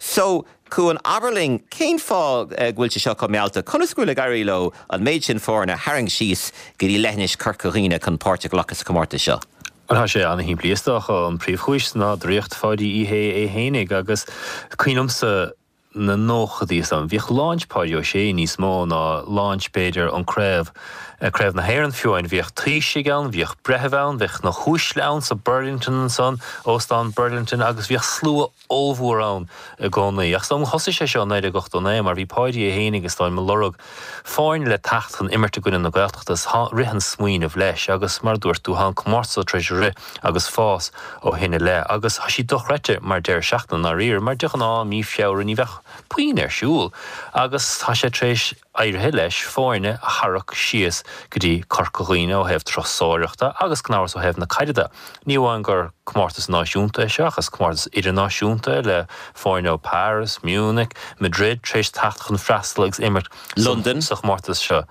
So, Cuan, abair linn, cén fáth go bhfuil sé seo chomh mealltach? Conas go bhfuil ag éirí leo an méid sin foirne a tharraingt síos go dtí leithinis Chorca Dhuibhne chun páirt a ghlacadh sa chomórtas seo? Bhuel, tá sé ana-shimplí is dócha. An príomhchúis ná draíocht Pháidí Uí Shé é fhéinig agus cuimhin liomsa na nóchadaí is dóigh. Bhíodh launch Páidí Ó Sé níos mó ná launch b'fhéidir an craobh, Craobh na hÉireann fiú amháin. Bhíodh taoisigh ann, bhíodh breithimh ann, bheadh na huaisle ann sa Burlington ansan, Óstán Burlington agus bhíodh slua ollmhór ann i gcónaí. Ach is dóigh liom thosaigh sé seo i 1989 mar bhí Páidí é fhéinig is dóigh liom ag lorg foirne le teacht chun imirt i gcoinne na Gaeltachta is rith an smaoineamh leis agus mar a dúirt tú tá an comórtas tar éis rith agus fás ó shin i leith agus tá sí dochreidte mar deireadh seachtaine i ndáiríre mar de ghnáth mí Feabhra ní bheadh puinn ar siúl agus tá sé tar éis éirithe leis foirne a tharrac síos go dtí Corca Dhuibhne ó thaobh turasóireachta agus gan amhras ó thaobh na caide de. Ní amháin gur comórtas náisiúnta é seo ach is comórtas idirnáisiúnta é le foirne ó Paris, Munich, Madrid tar éis teacht chun freastal agus imirt Londain. sa chomórtas seo.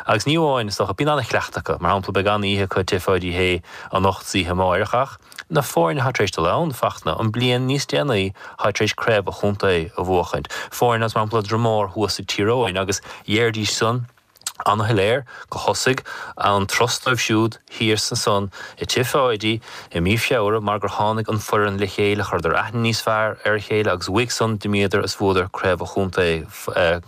Agus ní amháin, is dócha, bíonn an-chleachtadh acu. Mar shampla, beidh an-oíche acu i Tigh Pháidí Uí Shé anocht is oíche amáireach ach na foirne atá tar éis dul ann, Fachtna, an bliain níos déanaí atá tar éis craobh an chontae a bhuachaint. Foirne as, mar shampla, Dromore thuas ag Tír Eoghain agus dheiridís san. Ana-shoiléir go thosaigh an turas dóibh siúd thiar ansan i Tigh Pháidí i mí Feabhra mar gur tháinig an foireann le chéile, chuireadar aithne níos fearr ar a chéile agus uaidh san d'imíodar is bhuadar Craobh an Chontae.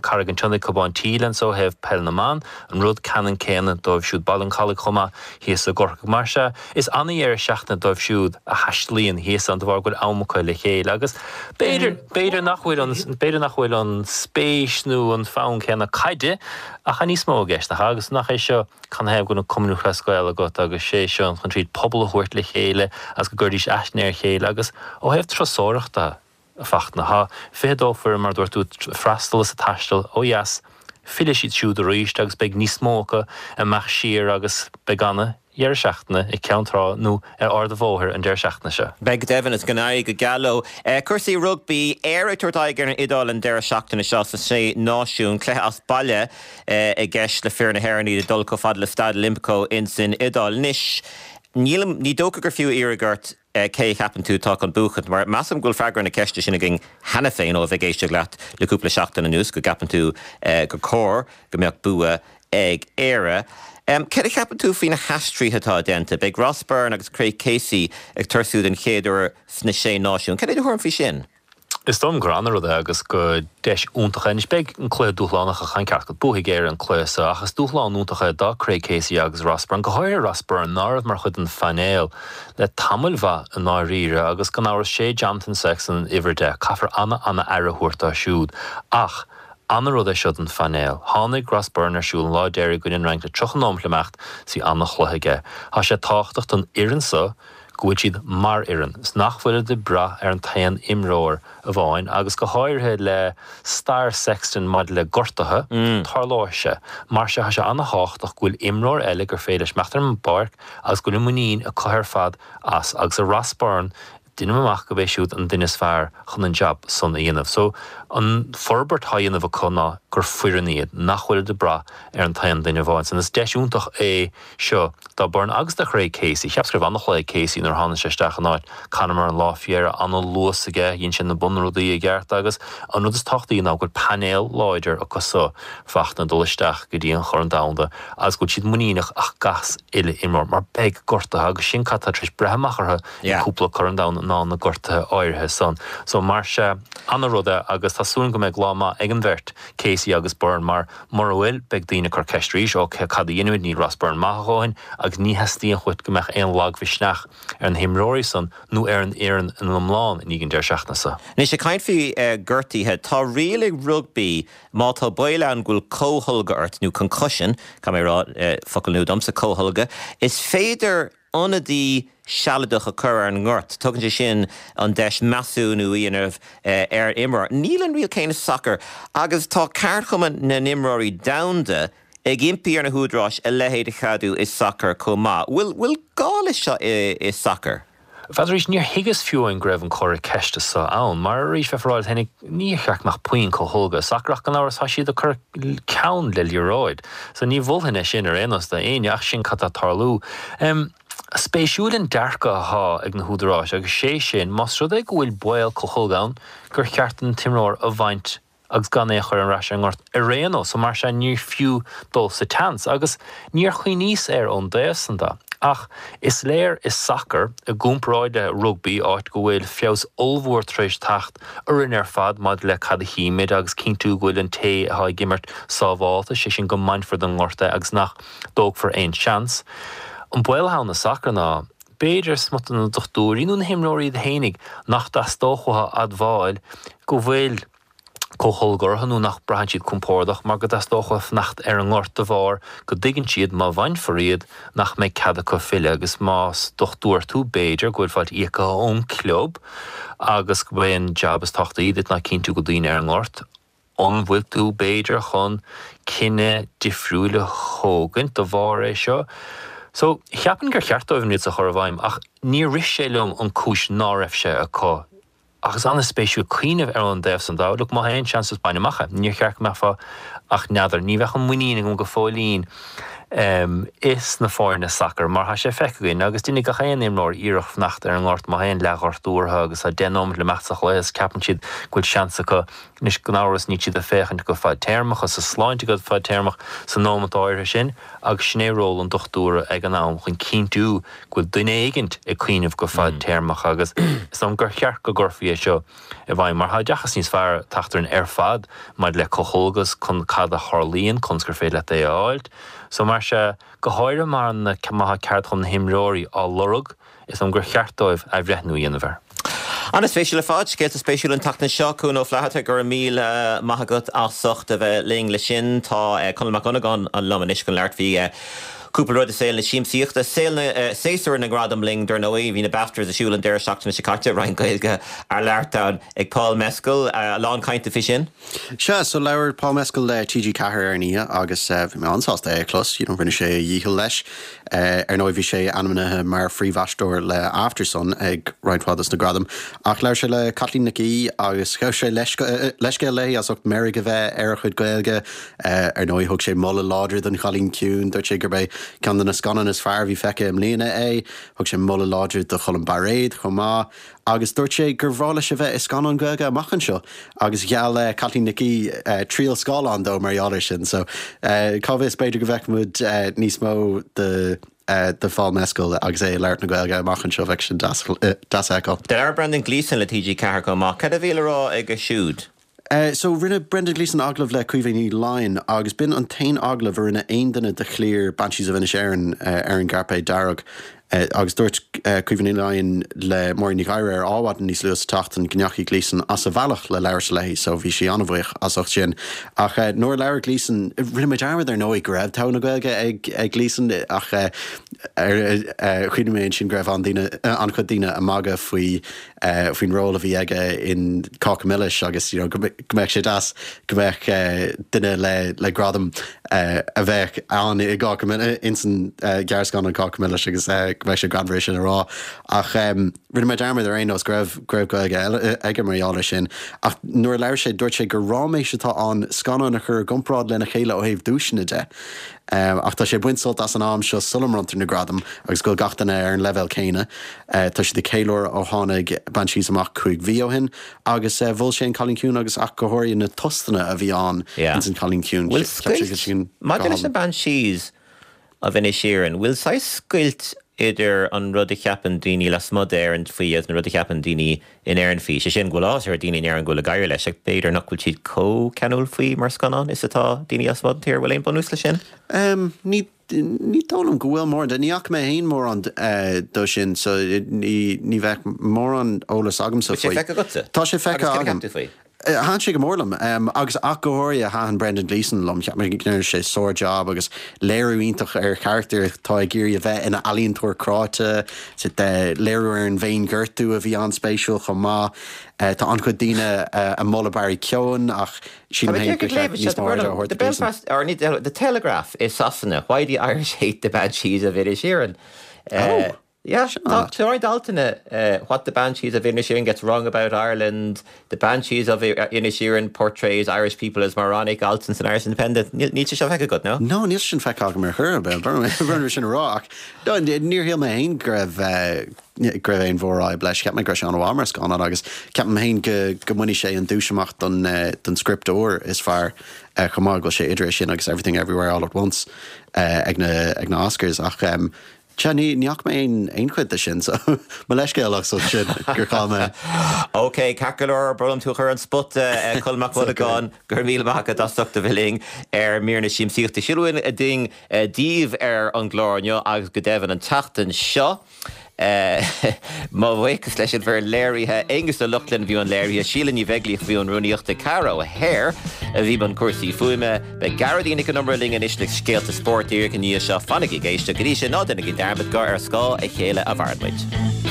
Carraig an tSionnaigh, Cobán Tíle anso ó thaobh peil na mban, an rud ceannann céanna dóibh siúd. Baile an Chalaigh chomh maith thíos i gCorcaigh. Mar sea, is ana-dheireadh seachtaine dóibh siúd a thaistealaíonn thíos ann de bharr go bhfuil am acu le chéile agus b'fhéidir, b'fhéidir nach bhfuil an, b'fhéidir nach bhfuil an spéis nó an fonn céanna caide ach tá níos mó i gceist, nach ea? Agus nach é seo canathaobh go bhfuil an Cumann Lúthchleas Gael agat agus sé seo chun tríd pobal a thabhairt le chéile agus go gcuiridís aithne ar a chéile agus ó thaobh turasóireachta, a Fachtna. Tá 22 foireann, mar a dúirt tú, ag freastal is ag taisteal ó dheas. Fillfidh siad siúd arís agus beidh níos mó acu ag imeacht siar agus beidh ana dheireadh seachtaine i gCeann Trá nó ar Ard an Bhóthair an deireadh seachtaine seo. Beidh go deimhin is go n-éirí go geal leo. Cúrsaí rugbaí, Éire ag tabhairt aghaidh ar an Iodáil an deireadh seachtaine seo sa Sé Náisiún. Cluiche as baile i gceist le fir na hÉireann, iad ag dul chomh fada le Staid Olimpico ins an Iodáil. Anois, nílim, ní dócha gur fiú iarraidh ort, cé a cheapann tú atá chun buachaint? Mar measaim go bhfuil freagra na ceiste sin againn cheana féin ó a bheith ag éisteacht leat le cúpla seachtain anuas, go gceapann tú gur cóir go mbeadh bua ag Éire. Céard a cheapann tú faoi na haistrithe atá déanta? Beidh Ross Byrne agus Craig Casey ag tosú den chéad uair sna Sé Náisiún. Cad é do thuairim faoi sin? Is dóigh liom gur ana-rud é agus gur deis iontach é. Anois beidh an cluiche dúshlánach ach tá an ceart agat, buafaidh Éire an cluiche seo ach is dúshlán iontach é do Craig Casey agus Ross Byrne, go háirithe Ross Byrne, ná raibh mar chuid den phainéal le tamaill mhaith i ndáiríre agus gan amhras sé Jonathan Sexton uimhir 10. Caithfear ana-ana-aire a thabhairt dó siúd ach ana-rud é seo don phainéal. Tháinig Ross Byrne ar siúl an lá deiridh i gcoinne an Fhrainc le 30 nóimeat le imeacht 's bhí ana-chluiche aige. Tá sé tábhachtach don fhoireann seo go bhfuil siad mar fhoireann, is nach bhfuilid ag brath ar an t-aon imreoir amháin, agus go háirithe le stair Sexton maidir le gortuithe, tarlóidh sé. Mar sin, tá sé ana-thábhachtach go bhfuil imreoir eile gur féidir leis imeacht ar an bpáirc agus go bhfuil an muinín acu ar fad as, agus i Ross Byrne, deinim amach gurb é siúd an duine is fearr chun an jab san a dhéanamh. So, an forbairt atá á dhéanamh acu ná gur foireann iad, nach bhfuilid ag brath ar an t-aon duine amháin san. Is deis iontach é seo do Byrne agus do Chraig Casey. Cheapas go raibh an-chluiche ag Casey nuair a tháinig sé isteach in áit Conor Murray an lá faoi dheireadh. An-luas aige, dhein sé na bunrudaí i gceart agus an rud is tábhachtaí ná go bhfuil painéal láidir acu so Fachtna dul isteach go dtí an Chorn Domhanda agus go bhfuil siad muiníneach as gach uile imreoir mar beidh gortuithe agus sin cad tá tar éis breith amach orthu i gcúpla Corn Domhanda ná na gortuithe áirithe san. So mar sea, an-rud é agus tá súil agam go mbeidh lá maith ag an bheirt, Casey agus Byrne mar Mura bhfuil, beidh daoine ag cur ceist arís, ok, cad a dhéanfaimid, níl Ross Byrne maith a dhóthain agus ní theastaíonn uait go mbeadh aon lagmhisneach ar na himreoirí san nó ar an fhoireann ina iomlán i ndiaidh an deireadh seachtaine seo. Anois, ag caint faoi gortuithe, tá riail ag rugbaí má tá baol ann go bhfuil comhtholgadh ort, nó concussion, caithfidh mé a rá, focal nua domsa, comhtholgadh, is féidir ionadaí sealadach a chur ar an ngort. Tugann sé sin an deis measúnú a dhéanamh ar imreoir. Níl an riail chéanna sa sacar agus tá ceardchumann na n-imreoirí domhanda ag impí ar na húdaráis a leithéid a cheadú i sacar chomh maith. Bhfuil gá leis seo i sacar? Bhuel arís, níor thuigeas fiú amháin go raibh an comhartha ceiste seo ann, mar arís, bheifeá ag rá leat féinig, níor cheart go mbeadh puinn comhtholgadh i sacar ach gan amhras tá siad ag cur ceann le liathróid. So ní mholfainn é sin ar aon nós do éinne ach sin cad tá ag tarlú. Spéisiúil an dearcadh athá ag na húdaráis agus sé sin, más rud é go bhfuil baol comhtholgadh ann, gur cheart an t-imreoir a bhaint agus gan é a chur ar ais ar an ngort ar aon nós, so mar sea ní fiú dul sa tseans. Agus níor chuimhníos air ón dtaobh san de. Ach is léir i sacar, i gcomparáid le rugbaí, áit go bhfuil feabhas ollmhór tar éis teacht orainn ar fad maidir le cad a chímid agus cinntiú go bhfuil an té atá ag imirt sábhálta, sé sin go mbainfear den ngort é agus nach dtógfar aon seans. An baol atá ann i sacar ná, b'fhéidir, smut de na dochtúirí nó na himreoirí iad fhéinig nach dteastódh uathu a admháil go bhfuil comhtholgadh orthu nó nach braitheann siad compordach mar go dteastódh uathu fanacht ar an ngort de bharr go dtuigeann siad má bhainfear iad nach mbeidh cead acu filleadh agus más dochtúir tú b'fhéidir go bhfuil fáilt íoctha ón gclub agus go b'é an jab is tábhachtaí duit ná cinntiú go bhfuil daoine ar an ngort. An bhfuil tú b'fhéidir chun cinneadh difriúil a thógaint de bharr é seo? So, cheapfainn gur cheart dóibh an riail seo a chur i bhfeidhm ach níor rith sé liom an cúis ná raibh sé acu. Ach is an-spéisiúil cuimhneamh ar an dtaobh san de. Look, má tá aon seans just bain amach é. Níor cheart go mbeifeá ach n'fheadar. Ní bheadh an muinín agam go fóillín. is na foirne sacair mar tá sé feicthe againn agus déanfaidh gach aon imreoir iarracht fanacht ar an ngort má tá aon leathghortú orthu agus tá 10 nóiméad le imeacht sa chluiche is ceapann siad go bhfuil seans acu. Anois gan amhras níl siad ag féachaint go fadtéarmach agus a sláinte go fadtéarmach sa nóiméad áirithe sin agus sin é ról an dochtúra ag an am chun cinntiú go bhfuil duine éigint ag cuimhneamh go fadtéarmach agus is dóigh liom gur cheart go gcuirfí é seo i bhfeidhm mar tá oideachas níos fearr ag teacht orainn ar fad maidir le calcóg cad a tharlaíonn, conas gur féidir leat é a fháilt. So mar sea, go háirithe mar má tá ceardchumann na himreoirí á lorg, is dóigh liom gur cheart dóibh athbhreithniú a dhéanamh air. An-spéisiúil ar fad, scéalta spéisiúla an tseachtain seo. Cuan Ó Flatharta, go raibh míle maith agat as ucht a bheith linn le sin. Tá Conall Mac Dhonnagáin liom anois chun labhairt faoi Cúpla rud i saol na siamsaíochta, saol na, séasúr na ngradam linn dar ndóigh. Bhí na BAFTAs ar siúl an deireadh seachtaine seo caite, roinnt Gaeilge á labhairt ann ag Paul Mescal. A lán cainte faoi sin. Sea, so labhair Paul Mescal le TG4 ar an oíche agus bhí mé an-sásta é a chlos, you know, rinne sé a dhícheall leis. Ar ndóigh bhí sé ainmnithe mar phríomhaisteoir le Aftersun ag roinnt mhaith dos na gradaim. Ach labhair sé le Caitlín Nic Aoidh agus ghabh sé leithscéal léi as ucht meirg a bheith ar a chuid Gaeilge. Ar ndóigh, thug sé moladh láidir don Chailín Ciúin, dúirt sé gurb é ceann de na scannáin is fearr a bhí feicthe i mbliana é. Thug sé moladh láidir do Cholm Bairéad chomh maith agus dúirt sé gur bhreá leis a bheith i scannán Gaeilge amach anseo agus gheall Caitlín Nic Aoidh triail scáileáin dó mar gheall air sin. So, cá bhfios, b'fhéidir go bhfeicfidh muid níos mó de de Phaul Mescal agus é ag labhairt na Gaeilge amach anseo, bheadh sin deas a fheiceáil. Labhair Brendan Gleeson le TG4 chomh maith. Cad a bhí le rá aige siúd? So, rinne Brendan Gleeson agallamh le Caoimhe Ní Laighin agus b'in an t-aon agallamh a rinne aon duine de chliar Banshees of Inisherin ar an gcairpéad dearg. Agus dúirt Caoimhe Ní Laighin le Máirín Ní Ghadhra ar Adhmhaidin níos luaithe sa tseachtain go ndeachaigh Gleeson as a bhealach le labhairt léi, so bhí sí an-bhuíoch as ucht sin. Ach nuair a labhair Gleeson, rinne mé dearmad ar ndóigh go raibh togha na Gaeilge ag Gleeson ach chuimhnigh mé ansin go raibh an-chuid daoine ag magadh faoi faoin ról a bhí aige in Cáca Milis agus you know go mbeadh sé deas go mbeadh duine le le gradam a bheadh ann i gCáca Milis ins an ghearrscannán Cáca Milis agus go mbeadh sé greannmhar é sin a rá. Ach rinne mé dearmad ar aon nós go raibh go raibh Gaeilge eile aige mar gheall air sin. Ach nuair a labhair sé dúirt sé gur ráiméis atá ann scannáin a chur i gcomparáid lena chéile ó thaobh duaiseanna de. Ach tá sé ag baint sult as an am seo sula mbronntar na gradaim agus go bhfuil gach duine ar an leibhéal céanna. Tá siad ag ceiliúradh ó tháinig Banshees amach 5 mhí ó shin agus mhol sé An Cailín Ciúin agus ach go háirithe na tostanna a bhí ann ins An Cailín Ciúin. Bhfuil scoilt, maidir leis na Banshees of Inisherin, bhfuil saghas scoilt idir an rud a cheapann daoine lasmuigh d'Éirinn faoi agus an rud a cheapann daoine in Éirinn faoi? Sé sin, go bhfuil áthas ar dhaoine in Éirinn go bhfuil ag éirí leis ach b'fhéidir nach bhfuil siad chomh ceanúil faoi mar scannán is atá daoine lasmuigh den tír. Bhfuil aon bunús leis sin? Ní Ní dóigh liom go bhfuil mórán de. Ní fhaca mé féin mórán de sin so ní bheadh mórán eolas agamsa faoi. Bhfuil sé feicthe agatsa? Tá sé feicthe agam. Agus cad a cheap tú faoi? Thaitin sé go mór liom agus ach go háirithe thaitin Brendan Gleeson liom. Cheap mé go ndearna sé sár-jab agus léiriú iontach ar charachtar atá ag iarraidh a bheith ina ealaíontóir cráite, léiriú ar an bhféinghortú a bhí an-spéisiúil chomh maith. Tá an-chuid daoine ag moladh Barry Keoghan ach sílim féin gur cheart níos mó airde a thabhairt do Gleeson. Or ní The Telegraph i Sasana, Why the Irish Hate the Banshees of Inisherin. Oh! Yeah, tá roinnt altanna What the Banshees of Inisherin gets wrong about Ireland, The Banshees of Inisherin portrays Irish people as moronic, alt san Irish Independent. Níl sé seo feicthe agat, no? No, níl sé sin feicthe agam ar chor ar bith, brón sin a rá, ach níor shíl mé féin go raibh go raibh aon mhórfhadhb leis. Cheap mé go raibh sé an-mhaith mar scannán agus ceapaim féin go go mbainfidh sé an duais amach don don script úr is fearr chomh maith, go bhfuil sé idir é sin agus Everything Everywhere All at Once ag na ag na Oscars ach sea ní ní fhaca mé aon aon chuid de sin so mo leithscéal as ucht sin gur chaill mé. Ok, ceart go leor, brón orm tú a chur ar an spota, Colm Mac Dhonnagáin, go raibh míle maith agat as ucht a bheith linn ar Mír na Siamsaíochta. Sin a bhfuil againn daoibh ar an gclár inniu agus go deimhin an tseachtain seo. Mo bhuíochas leis an bhfoireann léirithe, Aonghus Ó Lochlainn i mbun léirithe, Síle Ní Bheaglaoich i mbun rúnaíochta, Cara O'Hare a bhí i mbun cúrsaí fuaime. Beidh Gearóidín Nic Con Iomaire linn anois le scéalta spóirt díreach i ndiaidh seo. Fanaigí ag éisteacht go dtí sin, ná déanaigí dearmad gur ar scáth a chéile a mhaireann muid.